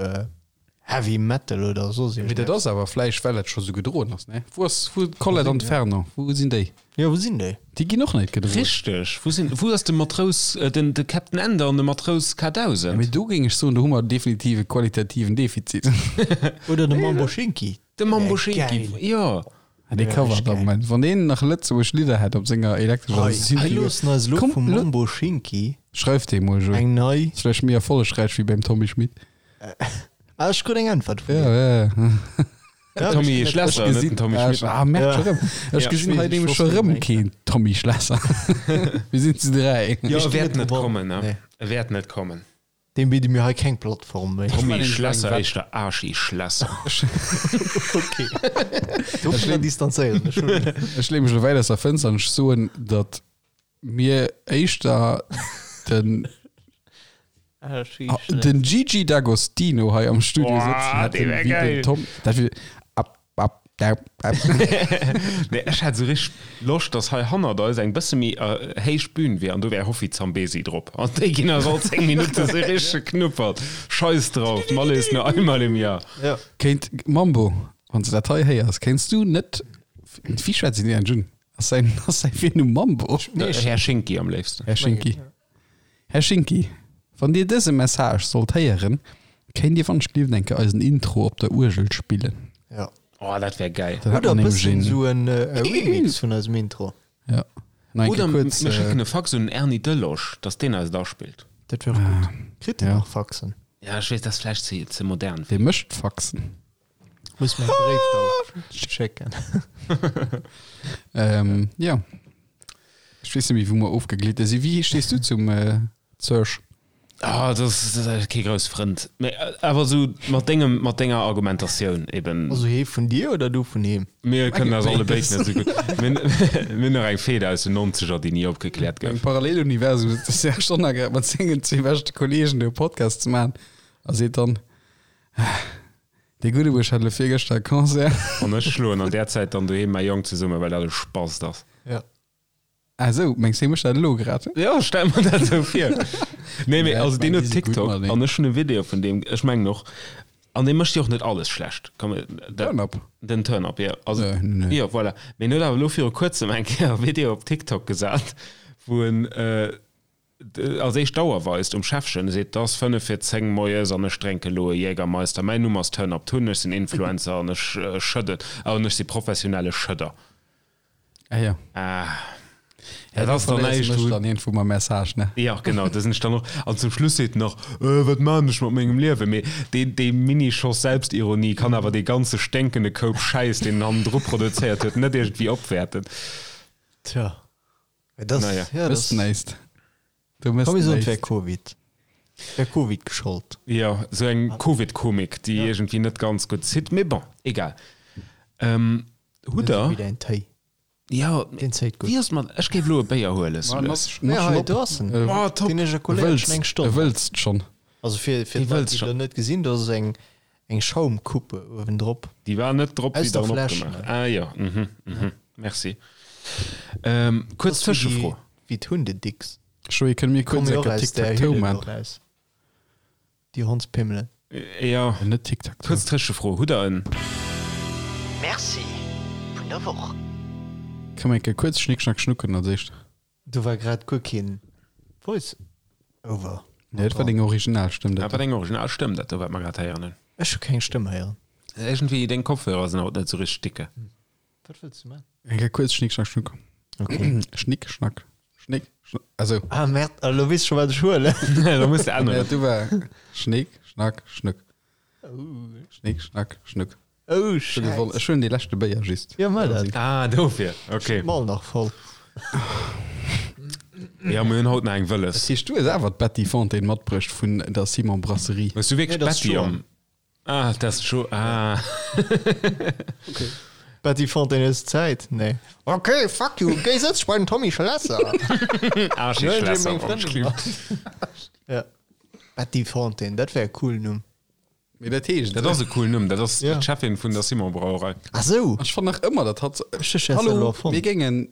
Heavy Metal oder soss Mee dat iergendeppes. ass awer vläicht, well dat scho sou gedroen ass, ne? Wou ass, wou d'Colette an d'Fernand, wou sinn déi? Jo, wou sinn déi? Déi ginn och net gedroen. Richteg, wou sinn, wou ass de Matrous, den, de Captain Ender an de Matrous K1000? Mee do géing ech soen, do hu mer definitiv e qualitativen Defizit. Oder de Mambo Schinki. De Mambo Schinki, jo. Dee covert am Moment. Wann deen nach lëtzebuergesch Lidder hätt op senger elektrescher Hei, Synthi. hei loossen eis elo Komm, vum lo- Mambo Schinki Schreif deem mol, Joé. eng nei. Ass vläicht méi erfollegräich wéi beim Tommy Schmitt. Ah, ech krut eng Äntwert vun Ja, dir. ja, ja. Ja, Tommy ech- Schlesser, Ech net den gesinn, Tommy ah, Schmitt. ah, merk Ja. scho rëm. Ech Ja. gesinn hei Ech nämlech wosst scho net rëm méi. keen Tommy Schlesser. Mir sinn zu 3. Jo, Ech e wäert ginn net net kommen, ne? Nee. E wäert net kommen. Deem bidde mir hei keng Plattform méi. Tommy Schlesser, éischter Arschi Schlesser. Okay. Dovunner distanzéieren ech mech. Ech leeë mech elo wäit aus der Fënster an ech soen, datt mir éischter den, den Gigi D'Agostino hei am Studio Boah, sëtzen dee hätten, wär wéi den geil. Tom. Dat wier ab, ab, dau, ab. Nee, ech hätt sou richteg Loscht, dass hei hannert eis eng bësse méi héich Bühn wier an do wär Hoffi Zambezi drop an déi ginn eis all 10 Minutte sou richteg geknuppert. Scheiss drauf, d'Malle ist nur einmal im Jahr. Ja. Kéint, Mambo, wann s de dat hei héiers, kéints du net, wéi schwätzt een deen un? Ass säin, ass säi Virnumm Mambo? Nee, Här Schinki am léifsten. Här Schinki. Här Schinki, wann Dir dëse Message sollt héieren, kéint Dir wann ech gelift eng Kéier eisen Intro op der Uergel spillen? Ja. Oh, dat wär geil. Dann hätt Oder mer e nämlech bëssen een, sou en Remix vun eisem Intro. ja, nach eng Oder Kéier mir kuerz, äh, schécken e Fax un den Erny Delosch, dass deen eis et aspillt. Dat wär och gutt. Kritt en Ja. nach Faxen? Ja, ech weess, dat ass vläicht ze, ze modern. dee mécht Faxen. Muss mir e Bréif da schécken. Ähm, ja. Ech weess net méi, wou mer ofgeglitte sinn. Wéi stees du zum äh, Serge? Ah, dat ass, dat ass kee grouss Frënd. Mee awer esou mat dengem, mat denger Argumentatioun eben. Also hee vun dir oder du vun him? Mir kënnen eis alle béid net esou gutt. Mir mir hunn nach eng Fehde aus den Nonzeger, déi ni opgekläert gouf. Am Paralleluniversum sëtzt de Serge Donner grad mat sengen zwee beschte Kolleegen do e Podcast ze maachen a seet dann, Dee gudde Buersch hat elo virgëschter e Concert. An ech schloen an där Zäit dann doheem mäi Jong zesummen, well dat e Spast ass. Ja. Ah sou, mengs de hie mécht dat elo grad? Jo, ech stelle mer dat esou vir. Nee, mee also deen huet TikTok an ech hunn e Video vun deem, ech mengen och, an dee mécht jo och net alles schlecht, komm, Turn-up? Den Turn-up, jo. Also, jo, voilà. Mee en huet awer elo viru kuerzem eng Kéier e Video op TikTok gesat, wou en als éischt d'Auer weist um Schäffchen, e seet, 't ass 5 vir 10 moies an ech drénke elo e Jägermeister, mäin Numm ass Turn-up Tun, ech sinn Influencer an ech schëdden, an ech si professionelle Schëdder. Ah ja. Ah. Ja, dat ass dann näischt, wou. Dann iergendwou mam Message, ne? Ja, genau, da sinn ech dann och. An zum Schluss seet en nach, Äh, wat maan ech mat mengem Liewen? Mee dee, dee Mini-Schoss Selbstironie kann awer dee ganze sténkende Koup Schäiss, deen en hannendru produzéiert huet, net iergendwéi opwäerten. Tja. Mä dat, Naja. ja, Mëss dat. näischt. Du mëss Komm, mir soen, et wär näischt. Covid. Et wär Covid geschollt. Jo, sou eng Covid-Komik, déi iergendwéi net ganz gutt zitt. Mee bon, egal. Ähm, Hutt der? Wéi däin Téi. Jo, Deen zéit gutt. wéi ass mat, ech géif elo e Béier huelen, Ma, sou nass, lues. nass Ja, schon hei, op. do ass en. Oh, top. Deen ech erkoléiert Wëlls, schon eng Stonn. wëlls schonn. Also fir, fir Dee d'Leit, wëlls déi schon. elo net gesinn, do ass eng, eng Schaumcoupe uewendrop. Déi war net drop, Aus wéi der der en Fläsch, opgemaach. ne? Ah jo, mhm, mhm, merci. Ähm, kuerz Das ass wéi déi, Tëschefro. wéi d'Hundedicks. Joé, kënne mir kuerz Komme jo eng och aus där Tic-Tac-Toe Hülle do man? raus. Déi Hondspimmelen. Jo. Net Tic-Tac-Toe. Kuerz Tëschefro, hutt der en. Merci vun der Woch. Kënne mir eng Kéier kuerz Schnick Schnack Schnucken als éischt? Do war grad guer keen Voice Over. Nee, dat war deng original Stëmm, Dat dat war deng original Stëmm, dat do wat mer grad héieren hunn. Ech hu keng Stëmm héieren. Iergendwéi, deng Kopfhörer sinn haut net esou richteg dicke. Wat wëlls du man? Eng Kéier kuerz Schnick Schnack Schnuck. Okay. Schnick Schnack Schnick Schnack. Also. Ah merde, elo weess ech scho wat ech huelen. Da muss de änneren. Ja, du war Schnick Schnack Schnuck. Schnick Schnack Schnuck. Oh Ech hu gewonnen. Schäiss. Ech huelen dee leschte Béier just. Jo, mach dat. Ah, dofir. Okay. Mall nach voll. Ja, mir hunn haut nach eng Wëlles. Dat heescht, du hues awer d'Betty Fontaine matbruecht vun der Simon Brasserie. Hues du wierklech Nee, dat ass d'Betty Joan. am. Ah, dat ass Jo. Ah. Betty Fontaine hues Zäit? Nee. Okay, fuck you, géi sëtz bei den Tommy Schlesser. Ah, Schlesser, Schlesser. meng Frëndin. Ja. Betty Fontaine, dat wär e coolen Numm. Mee dat heescht. Dat ass e coolen Numm. Dat ass Ja. d'Cheffin vun der Simon Brauerei. Ah sou. Ech fannen nach ëmmer, dat hat. Ech hu Schässer elo Hallo, erfonnt. mir géingen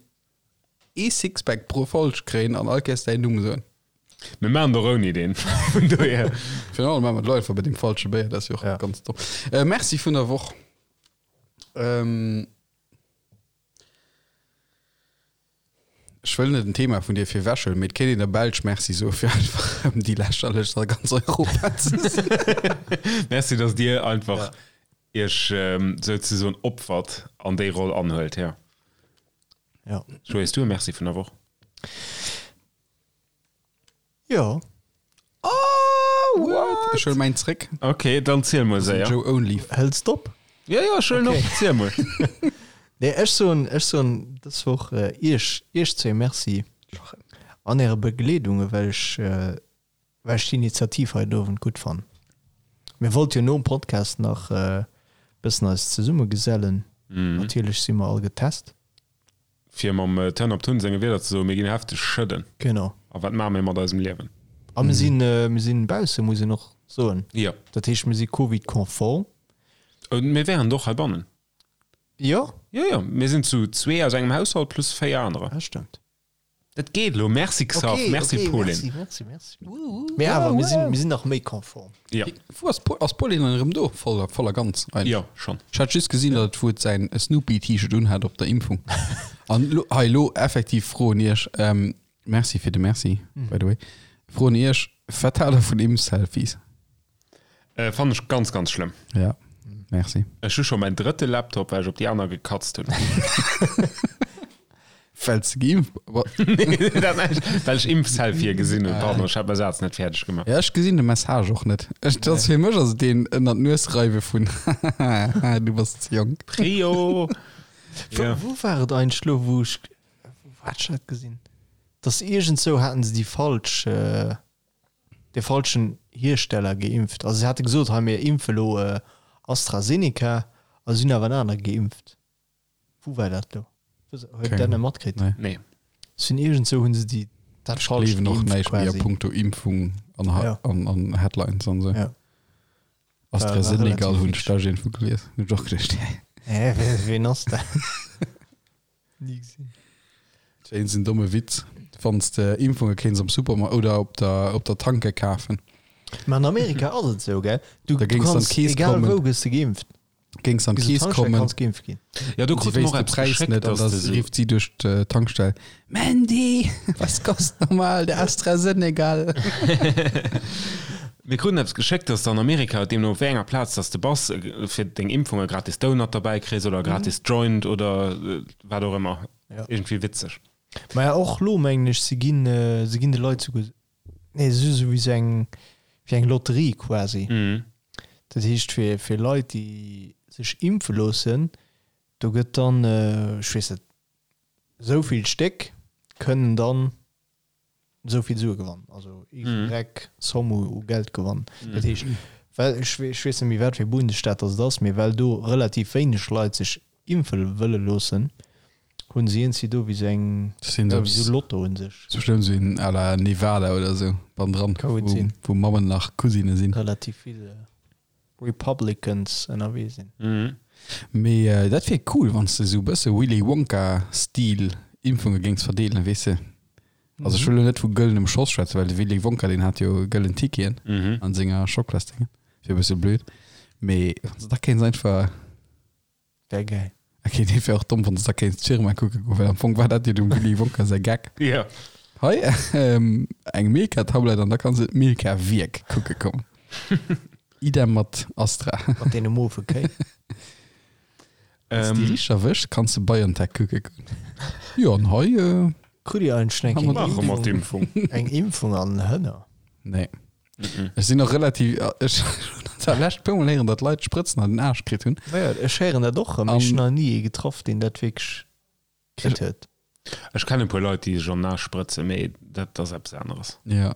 ee Sixpack pro Folg kréien an all Kéiers däin Numm soen. Mir maachen et och ouni deen. Vun dohier. Virun allem maache mer d'Leit einfach bei deem falsche Béier, dat ass jo och Ja. ganz domm. Äh, Merci vun der Woch. Ähm, ech wëll net en Thema vun dir virwechhuelen, mee et kéint een der Belsch Merci soe fir einfach erëm déi lächerlechst a ganz Europa ze sinn. Merci, dass Dir einfach Iech souzesoen opfert an déi Roll anhuelt. Ja. Ja. Joé, hues du e Merci vun der Woch? Jo. Oh, what? Ech huele mäin zréck. Ok, dann ziel mol séier. Joe Only. Hëls d'op? Ja, ja, ech huelen op. Ziel mol. Nee, ech soen, ech soen dës Woch iech, iech zwee Merci an äre Begleedung, well ech, well ech d'Initiativ hei den Owend gutt fannen. Mir wollte jo nom Podcast nach e bëssen eis zesummegesellen. Natierlech si mer all getest. Fir mam Turn Up Tun senge Wierder ze soen, mir ginn hefteg schëdden. Genau. A wat maache mir mat eisem Liewen? A mir sinn, mir sinn bausse, muss een och soen. Jo. Dat heescht, mir si Covid-konform. Mir wären et och heibannen. Jo. Jo, jo, mir sinn zu zwee aus engem Haushalt plus véier anerer. Dat stëmmt. Dat geet elo. Merci Xav, Okay, merci okay, Pauline. Merci, merci, merci. Mee awer, mir sinn, mir sinn nach méi konform. Ja. Wou ass Pol, ass Pauline dann erëm do? Voll, voll a ganz eigentlech. Jo, schonn. Ech hat just gesinn, datt et wou et säin Snoopy-T-Shirt unhat op der Impfung. An lo, hei lo effektiv Fro un iech, ähm, merci fir de Merci, by the way. Fro un iech, wat haalt der vun Impf-Selfies? Äh, fannen ech ganz, ganz schlëmm. Ja, merci. Ech hu scho mäin drëtte Laptop, well ech op déi aner gekatzt hunn. Well s de geimpft Nee, dat näischt. Well ech Impfselfie gesinn hunn. Pardon, ech hat mäi Saz net fäerdeg gemaach. Ja, ech gesinn de Message och net. Ech, dat ass fir mech ass et deen ënnert d'Nues reiwe vun hahaha, du bass ze jonk. Prio! Wou, Ja. wou war et eigentlech lo, wou ech, wou hat ech dat gesinn? Dass iergendzou haten se déi falsch, äh. De falschen Hiersteller geimpft. Also se hate gesot, hei mir impfe lo AstraZeneca a si hunn awer en anere geimpft. Wou war dat lo? Huet Dir dat net matkritt? Nee. Si hunn iergendzou hunn se déi dat Ech falscht gleewen och geimpft näischt méi a quasi. punkto Impfung an Ja. an an Headlines an esou. Ja. AstraZenegal hunn ech da iergendwou gelies. Hunn ech och geduecht, hä? Hä, ween ass dat? Ni gesinn. Dat wär een domme Witz, wann s de Impfunge kéints am Supermarkt oder op der, op der Tanke kafen. Mä an Amerika ass et esou, gell? Du, Da géings an d'Keess egal kommen. wou gëss de geimpft. Géings an d'Keess kommen. Kanns geimpft ginn. Ja, do Si krute mer wéisst och de eppes Präis geschéckt, net an dass da de sou. rifft si duerch d'Tankstell, Mandy, was kost nochmal der AstraZenegal? Mir kruten eppes geschéckt, dass de an Amerika, deemno op wéi enger Plaz dass de bass, fir deng Impfung e gratis Donut derbäi kriss oder e gratis Joint oder wat och ëmmer. Ja. Iergendwéi witzeg. Maja och lo mengen ech, se ginn, se ginn de Leit souguer, nee se si sou wéi sou eng, wéi eng Lotterie quasi. Dat heescht fir, fir Leit déi sech impfe loossen, do gëtt dann, ech weess net, esou vill Stéck kënnen dann esou vill Sue gewannen, also Y Somme u Geld gewannen. Dat heescht, well, ech weess net méi wat fir e Bundesstaat datt et ass, mee well do relativ wéineg Leit sech impfe wëlle loossen, hunn se iergendwéi do wéi sou eng, jo, wéi sou Lotto un sech. Sou schlëmm, sou een à la Nevada oder sou bannendran, wou Mammen nach Cousine sinn. Relativ vill Republicans ënnerwee sinn. Mee dat wier cool, wann s de sou bësse Willy Wonka-Stil Impfunge géings verdeelen, weess de. Also ech wëll elo net vu gëllenem Schoss schwätzen, well de Willy Wonka deen hat jo gëllen Ticketen an senger Schoklasdéngen, wier e bësse blöd. Mee wann s de da kéints einfach. Wär gäil. Ok, dee wär och domm, wann s de da kéints d'Firma kucke goen, well am Fong war dat jo dem Willy Wonka säi Gag. Jo. Hei eng Milka-Tablett an da kanns de d'Milka-Wierk kucke kommen. Idem mat Astra. Mat deene mofe Kéi. Wann s de déi richteg erwëschs, kanns de BioNTech kucke goen. Jo, an hei. Krut Dir eigentlech eng Maache mer d'Impfung. Eng Impfung an den Hënner? Nee. Ech sinn och relativ, ech hunn dat lescht puer mol héieren, datt Leit Sprëtzen an den Aarsch kritt hunn. Jo, ech héieren dat och erëm. Ech hunn nach ni ee getraff, deen dat wierklech kritt huet. Ech kennen e puer Leit, déi sech an den Aarsch sprëtzen, mee dat ass eppes aneres. Jo.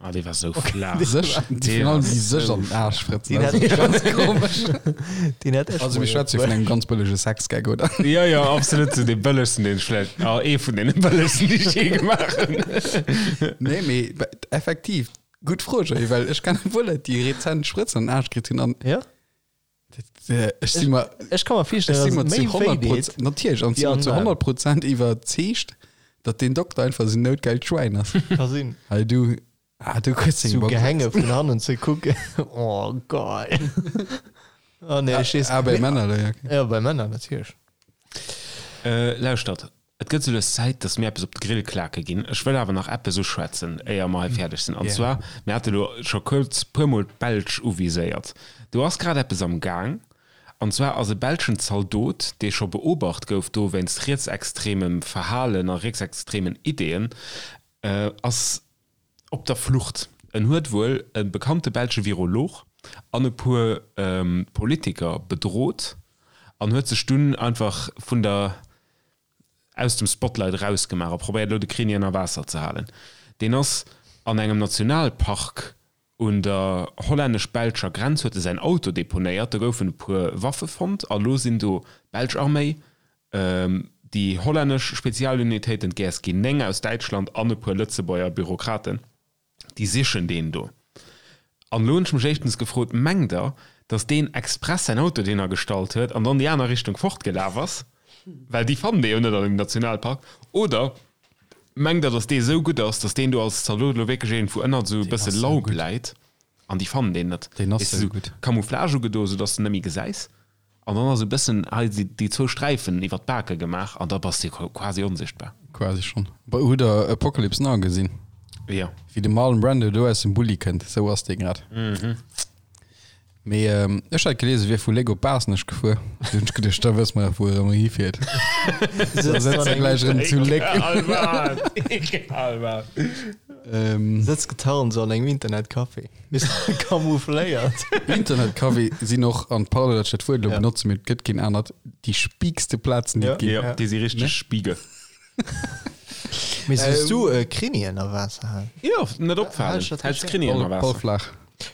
Ah, dee war sou flaach. Sech, déi virun allem déi sech an den Aarsch sprëtzen, dat ass ganz komesch. Deen hat ech Also mir schwätze jo vun engem ganz bëllege Sexgag, oder? Jo, jo, absolut, sou dee bëllegsten, deen ech vläicht, ah, ee vun deene bëllegsten, déi ech jee gemaach hunn. Nee, mee effektiv, gutt Fro, Joé, well ech kennen e puer Leit, déi rezent Sprëtzen an den Aarsch kritt hunn an. Jo. Ech si mer, Ech ka mer virstellen, ech si mer zu 100 Prozent, natierlech, an si mer zu 100 Prozent iwwerzeegt, datt deen Dokter einfach esou noutgeilt Schwäin ass. Ka sinn. Hei du, ah du kriss deng Box. Sou Gehänge vun hannen ze kucken, oh geil. Oh nee, ech weess. Ah, bei Männer, ja, okay. Ja, bei Männer natierlech. Lauschtert, Et gëtt sou lues Zäit, dass mir eppes op de Grill klake ginn. Ech wëll awer nach eppes uschwätzen, éier mer hei fäerdeg sinn. An zwar, mir hate lo scho kuerz puermol d'Belsch uviséiert. Do ass grad eppes am Gaang. An zwar ass e belschen Zaldot, dee scho beobacht gouf do wéinst rietsextremem Verhalen a rietsextremen Ideeën, ass op der Flucht. En huet wuel e bekannte belsche Virolog an e puer Politiker bedrot an huet sech dunn einfach vun der aus dem Spotlight erausgemaach a probéiert elo de Kreni ënner Waasser ze halen. Deen ass an engem Nationalpark un der hollännesch-belscher Grenz huet e säin Auto deponéiert, do goufen e puer Waffe fonnt a lo sinn do d'belsch Arméi, déi hollännesch Spezialunitéiten, d'GSG 9 aus Däitschland an e puer Lëtzebuerger Bürokraten. Déi sichen deen do. An elo hunn ech mech éischtens gefrot, Mengt Der, datt deen express säin Auto dohinner gestallt huet an dann déi aner Richtung fortgelaf ass? Well déi fannen dee jo net an engem Nationalpark. Oder mengt Der, datt dee esou gutt ass, datt deen do als Zaldot elo wierklech iergendwou ënnert esou e bësse Laub läit an déi fannen deen net? Deen ass esou gutt. Camouflage ugedo, esou datt s de en net méi gesäis. An dann ass e bëssen hei déi zwou Sträifen iwwer d'Bake gemaach an da bass de quasi onsichtbar. Quasi schonn. Hutt der Apocalypse Now gesinn? Jo. Wéi de Marlon Brando do aus dem Bulli kënnt, esou ass dee grad. Mee ech hat gelies, e wier vu Léck op Baasnech gefuer. Du hunn ech geduecht, da wësse mer jo, wou e erëm hifiert. Da sëtzt e gläich erëm zu Léck. Egal wat, egal wat. Sëtzt getarnt esou an engem Internetcafé. Bis camoufléiert. Internetcafé sinn och, an pardon, datt ech dat Wuert elo benotze, mee et gëtt keen anert, déi spiikste Plazen, déi et ginn. Jo, déi si richteg spiege. Mee soss du Krimi ënner Waasser halen? Jo, net opfalen. Häls Krimi ënner Waasser. Ball flaach.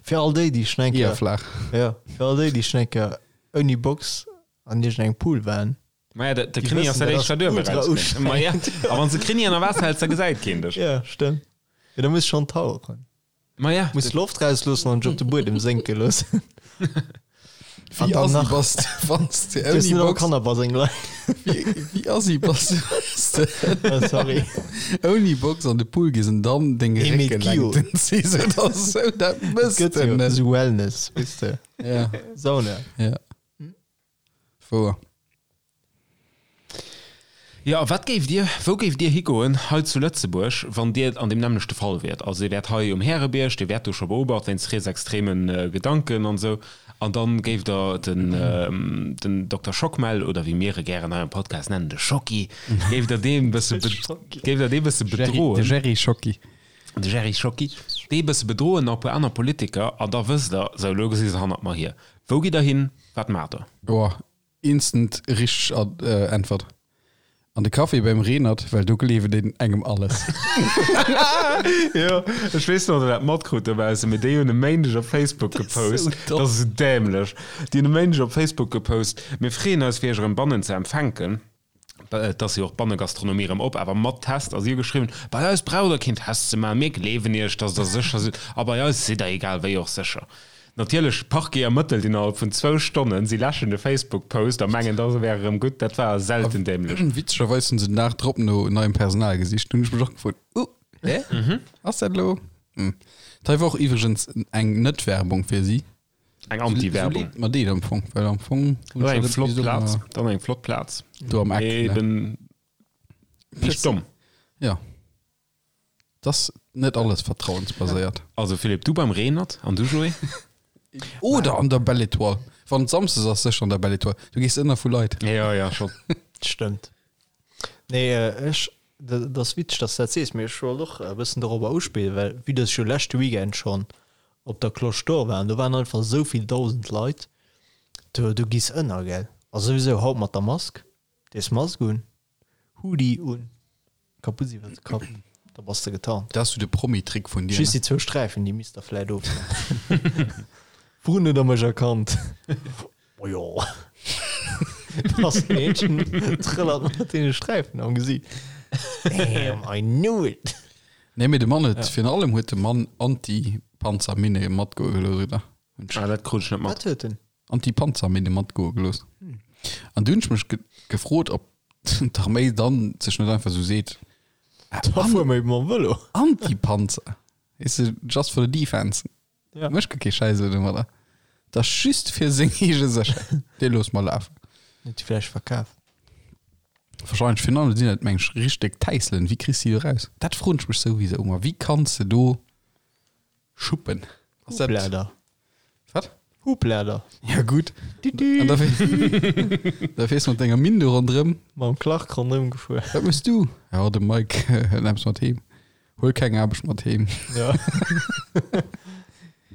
Fir all déi, déi schon eng Kéier. Eher flaach. Jo, fir all déi, déi schon eng Kéier ouni Box an iergendengem Pool waren. Maja, de, de Krimi ass dat éischt, wat uewe rauskënnt. Maja, a wann s de Krimi ënner Waasser häls, da gesäit keen dech. Jo, stëmmt. Jo, da muss schonn tauchen. Maja. Muss Loft rausloossen an dech op de Buedem sénke loossen. Wéi assi bass de, wann s de ouni Box. Kannerbaseng leien. Wéi assi bass de, wann s de. Oh, sorry. Ouni Box an de Pool gees an dann deng Réckelängten ziss oder sou, dat mëss de net. Esou Wellness, weess de. Ja. Sauna. Ja. Wouer. Jo, a wat géift Dir, wou géift Dir higoen hei zu Lëtzebuerg, wann Dir an deem nämmlechte Fall wiert? Also Dir wäert hei um Härebierg, Dir wäert do scho beobacht wéinst rietsextreme Gedanken an esou, an dann géift Der den, den Dokter Schockmel, oder wéi mir e gären hei am Podcast nennen, de Schocki, géift Der dee bësse, géift Der dee bësse bedroen? De Jerry Schocki. De Jerry Schocki, dee bësse bedroen, nach e puer aner Politiker, an da wësst Der, sou, elo gesi se hannert mer hier. Wou gitt Der hin? Wat maacht Der? Boah, instant richteg Äntwert. An de Café beim Reenert, well do gleewen een engem alles. Jo, ech weess net, ob der dat matkrut dobaussen, mee déi hunn e Méindeg op Facebook gepost, dat ass esou dämlech, déi hunn e Méindeg op Facebook gepost, Mir freeën eis fir iech erëm bannen ze empfänken. Et ass jo och d'Bannegastronomie erëm op, awer mat Test. A si hu geschriwwen, Bei eis braucht der keen Test ze maachen, mir gleewen iech, datt der sécher sidd a bei eis sidd der egal wéi och sécher. Natierlech, Parquet ermëttelt innerhalb vun zwou Stonnen, si läschen de Facebook-Post a mengen, da wär erëm gutt. Dat war selten dämlech. Witzegerweis hunn se den Dag drop no neiem Personal gesicht. Hunn ech mech och gefrot, Uh, hä? Ass dat elo? Hm. Dat hei war och iwwregens eng Net-Werbung fir si. Eng Anti-Werbung. Mat deet am Fong, well am Fong Dann eng flott Plaz, dann eng flott Plaz. Do am Eck. Eben nicht domm. Ja. Das net alles vertrauensbaséiert. Also Philippe, du beim Reenert an du Joé? Oder an der Belle Étoile. Wann et Samsdes ass, sécher an der Belle Étoile. Du gees ënner vu Leit. Ja, ja, schon. Stëmmt. Nee, ech, dat ass witzeg, dass du dat sees, mee ech wollt och e bëssen dorobber uspillen, well vue dass ech jo leschte Weekend schonn op der Cloche d'Or war an do waren einfach esou vill 1.000 Leit, do, do giss ënner, gell. A souwisou haut mat der Mask, dees Mask un, Hoodie un, Kaputt iwwer de Kapp, da bass de getarnt. Dat ass sou de Promi-Trick vun dir, ne? Just déi zwou Sträifen, déi misst der vläit ofhuelen. Wourun huet der mech erkannt? Oh jo. Ass en Eentchen trëllert mat deene Sträifen am Gesiit. Damn, I knew it! Nee, mee de Mann huet, virun allem huet de Mann Anti-Panzerminne matgoe gelooss, oder? Ah, dat krut ech net mat. Wat huet en? Anti-Panzerminne matgoe gelooss. An du hunn ech mech gefrot, ob d'Arméi dann sech net einfach sou seet, Da fuere mer eben mam Vëlo. Anti-Panzer, weess de, just for the defense. Ja. Mécht guer kee Schäiss elo domadder. Dat ass just fir seng eege Sécherheet. Dee loosse mer lafen. Huet déi vläicht verkaf? Wahrscheinlech. Virun allem sinn dat, meng ech, richteg Täisselen. Wéi kriss de déi do raus? Dat froen ech mech souwisou ëmmer. Wéi kanns de do schuppen? Ass dat. Hublader. Wat? Hublader. Ja gutt. An da da fiers mat denger Minn do ronderëm. Mam Clark ronderëm gefuer. Wat mëss du? Ja, de Mike hëlt eppes mat heem. Huel keng Aarbecht mat heem. Ja.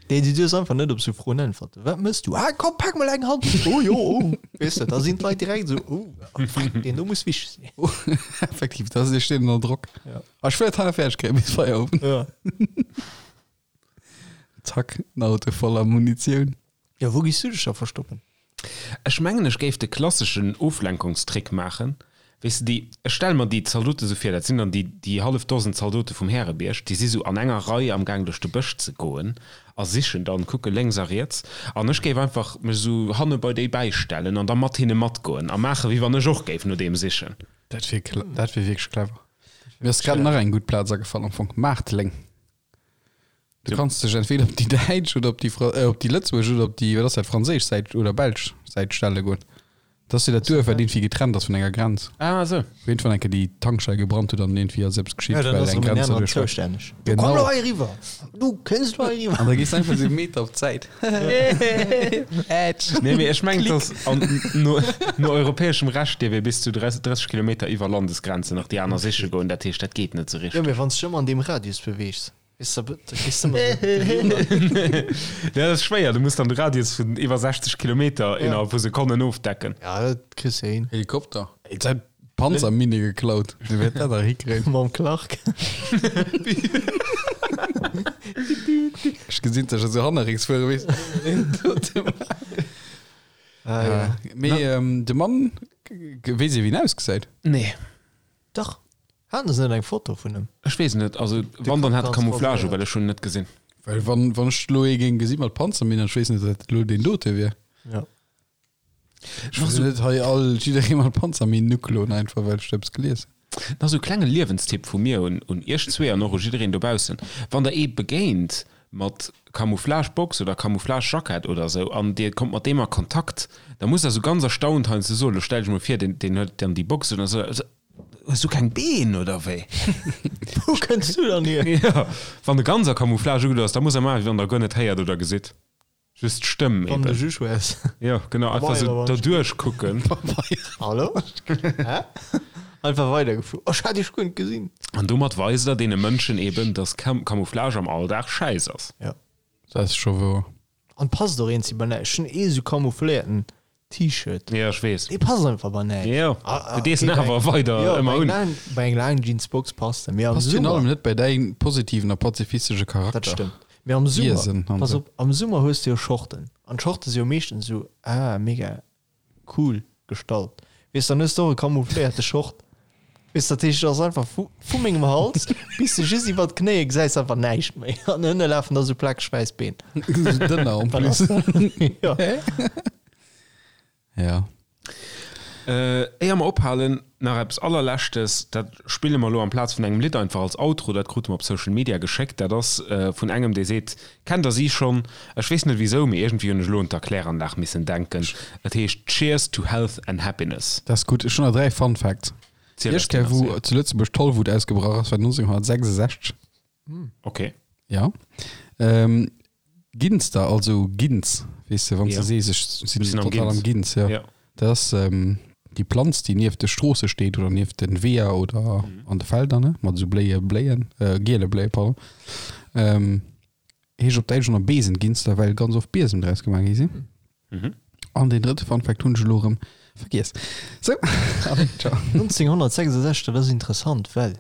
Nee, du duerfs einfach net op sou Froen äntwerten. Wat mëss du? Ah, komm, pak mol eng Hand. Oh jo, oh. Weess de, da sinn d'Leit direkt sou, oh, fuck, deen do muss wichteg sinn. Effektiv, da steet ënner Drock. Ja. Ah, ech wëll et hei nach fäerdeg kréien bis Feierowend. Ja. Zack, en Auto voller Munitioun. Jo, wou giss du dech da verstoppen? Ech mengen, ech géif de klasseschen Oflenkungstrick maachen. Weess de, déi, ech stelle mer déi Zaldote sou vir, dat sinn dann déi, déi hallef Dosen Zaldote vum Härebierg, déi si sou an enger Rei am Gaang duerch de Bësch ze goen a sichen dann, kucke lénks a riets. An ech géif einfach mech sou hanne bei déi bäistellen an da mat hinne matgoen a maachen, wéi wann ech och géif no deem sichen. Dat wier, dat wier wierklech clever. Mir ass grad nach eng gutt Plaz agefall am Fong, Maarteleng. Du kanns dech entweder op déi däitsch oder op déi Fra äh, op déi lëtzebuergesch oder op déi, wat ass dat, franséisch Säit oder belsch Säit stelle goen. Dat ass jo dat Duerf, wat iergendwéi getrennt ass vun enger Grenz. Ah, esou. Wou iergendwann eng Kéier déi Tankstell gebrannt huet an iergendwéi ass eppes geschitt, Ja, dann well ass eng erëm en Grenz aneren derduerch war. zoustänneg. Du komm Genau. lo hei eriwwer! Du kënns lo hei eriwwer! An da gees du einfach esou e Meter op d'Säit. Ätsch! Nee, mee ech mengen, dass an, no, no europäeschem Recht dierf ee bis zu 30 Kilometer iwwer Landesgrenzen nach déi aner siche goen. Dat heescht, dat geet net esou Jo, richteg. mee wann s de dech ëmmer an deem Radius beweegs. Weess de, da gees de ëmmer esou eriwwer. Ja, dat ass schwéier. Du muss dann de Radius vun iwwer 60 Kilometer innerhalb vu Sekonnen ofdecken. Ja, dat kriss de hin. Helikopter. Et säit. Panzerminne geklaut. Dee wäert dat nach hikréien. Mam Clark. Ech gesinn sech esou hannerrécks fuere, weess de. Ah, ja. Mee de Mann, weess ee wéi en ausgesäit? Nee. Dach. Haten se net eng Foto vun em? Ech weess net. Also wann, dann hat e Camouflage u, well ech hunn en net gesinn. Well wann, wann ech elo ee géing gesi mat Panzerminn an ech weess net, datt elo deen dote wier. Ja. Ech wëll net hei all jidderee mat Panzerminn ukloen, einfach well ech do eppes gelies hunn. Nach sou klenge Liewenstipp vu mir un un iech zwee an och u jiddereen dobaussen, Wann der ee begéint mat Camouflage-Box oder Camouflage-Jackett oder sou an dir kommt mat deem a Kontakt, da musst der sou ganz erstaunt heiansdo soen, lo stell dech mol vir, deen deen huet dann déi Box un a sou, Hues du keng Been oder wéi? Wou kënns du dann hier? Jo, wann e ganz a Camouflage ugedo ass, da muss er maachen, wéi wann der guer net héiert oder gesitt. Just d'Stëmm Wann de eben. Juge wäers. Jo, genau, einfach sou derduerch kucken. Hallo? Hä? Einfach weidergeflu. Oh, ech hat iech guer net gesinn. An domat weist der deene Mënschen eben, dass Camouflage am Alldag schäiss ass. Jo. Dat ass scho wouer. An passt och eens bei näischt. Ech hunn ee sou camoufléierten T-Shirt. Jo, ech weess. Dee passt einfach bei näischt. Jo, du dees en awer weider ëmmer un. Bei eng laang Jeansbox passt en. Mee am Passt virun Summer. allem net bei däin positiven a pazifistesche Charakter. Dat stëmmt. Mee am Summer, Wiesen an pass sou. op, am Summer hues de jo Shorten. An d'Shorte si jo meeschtens esou, ah, mega cool gestallt. Weess, dann hues de och e camoufléierte Short. Weess, dat heescht, et ass einfach vu, vu mengem Hals bis de just iwwer d'Knéie gesäis einfach näischt méi. An ënne lafen da sou plakeg wäiss Been. Sou dënner en Wat plus. ass dat? Ja. Ja. Éier mer ophalen, nach eppes allerleschtes, dat spille mer elo amplaz vun engem Lidd einfach als Outro, dat krute mer op Social Media geschéckt, dat ass vun engem, dee seet, kennt der si schonn? Ech weess net wisou, mee iergendwéi hunn ech elo un d'Erkläranlag missen denken. Et heescht Cheers to Health and Happiness. Dat ass gutt. Ech hunn nach 3 Fun Facts. Ziel Déi eis éischt Kéier, déi nach, wou seer. zu Lëtzebuerg d'Tollwut ausgebrach ass, war 1966. Ok. Ja. Ähm, Ginster, also Ginz, weess de, wann s Ja. de sees, ech sinn Ech sinn am total am Ginz. Ginz, ja. Ja. Dat ass ähm, déi Planz, déi nieft de Stroosse steet oder nieft den Weeër oder Mhm. an de Felder, ne, mat esou bléie Bléien, äh, giele Bléie, pardon. Ähm, heescht op Däitsch och nach Besenginster, well ganz oft Biesem draus gemaach gi sinn. Mhm. An deen drëtte Fun Fact hunn ech elo erëm vergiess. Sou, allez, ciao. 1966, dat ass interessant, well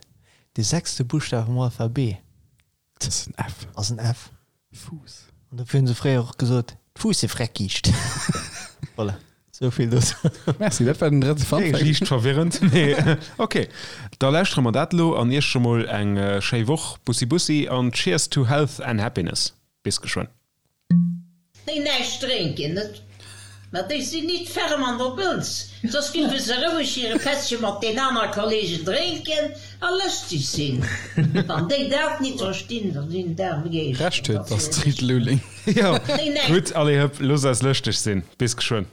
dee sechste Buschtaf am Alphabet Dat ass en F. ass en F. Fuuss. An dofir hunn se fréier och gesot, d'Fuussefreckiicht. Voilà, sou vill dozou. Merci, dat war den drëtte Fun Fact. Liicht verwirrend, mee ok. Da lauschtere mer dat elo an iech scho mol eng schéi Woch. Bussi bussi an cheers to health and happiness. Bis geschwënn. Déi näischt drénken, net? Ma déi sinn nit ferm an der Bëlz, soss géife se roueg hire Pättche mat den aner Kollegen drénken a lëschteg sinn. Wann déi dat nit verstinn, da sinn d'aarm Geeschten. Recht huet d'Astrid Lulling. Jo, gutt, allez hëpp, loosst eis lëschteg sinn. Bis geschwënn.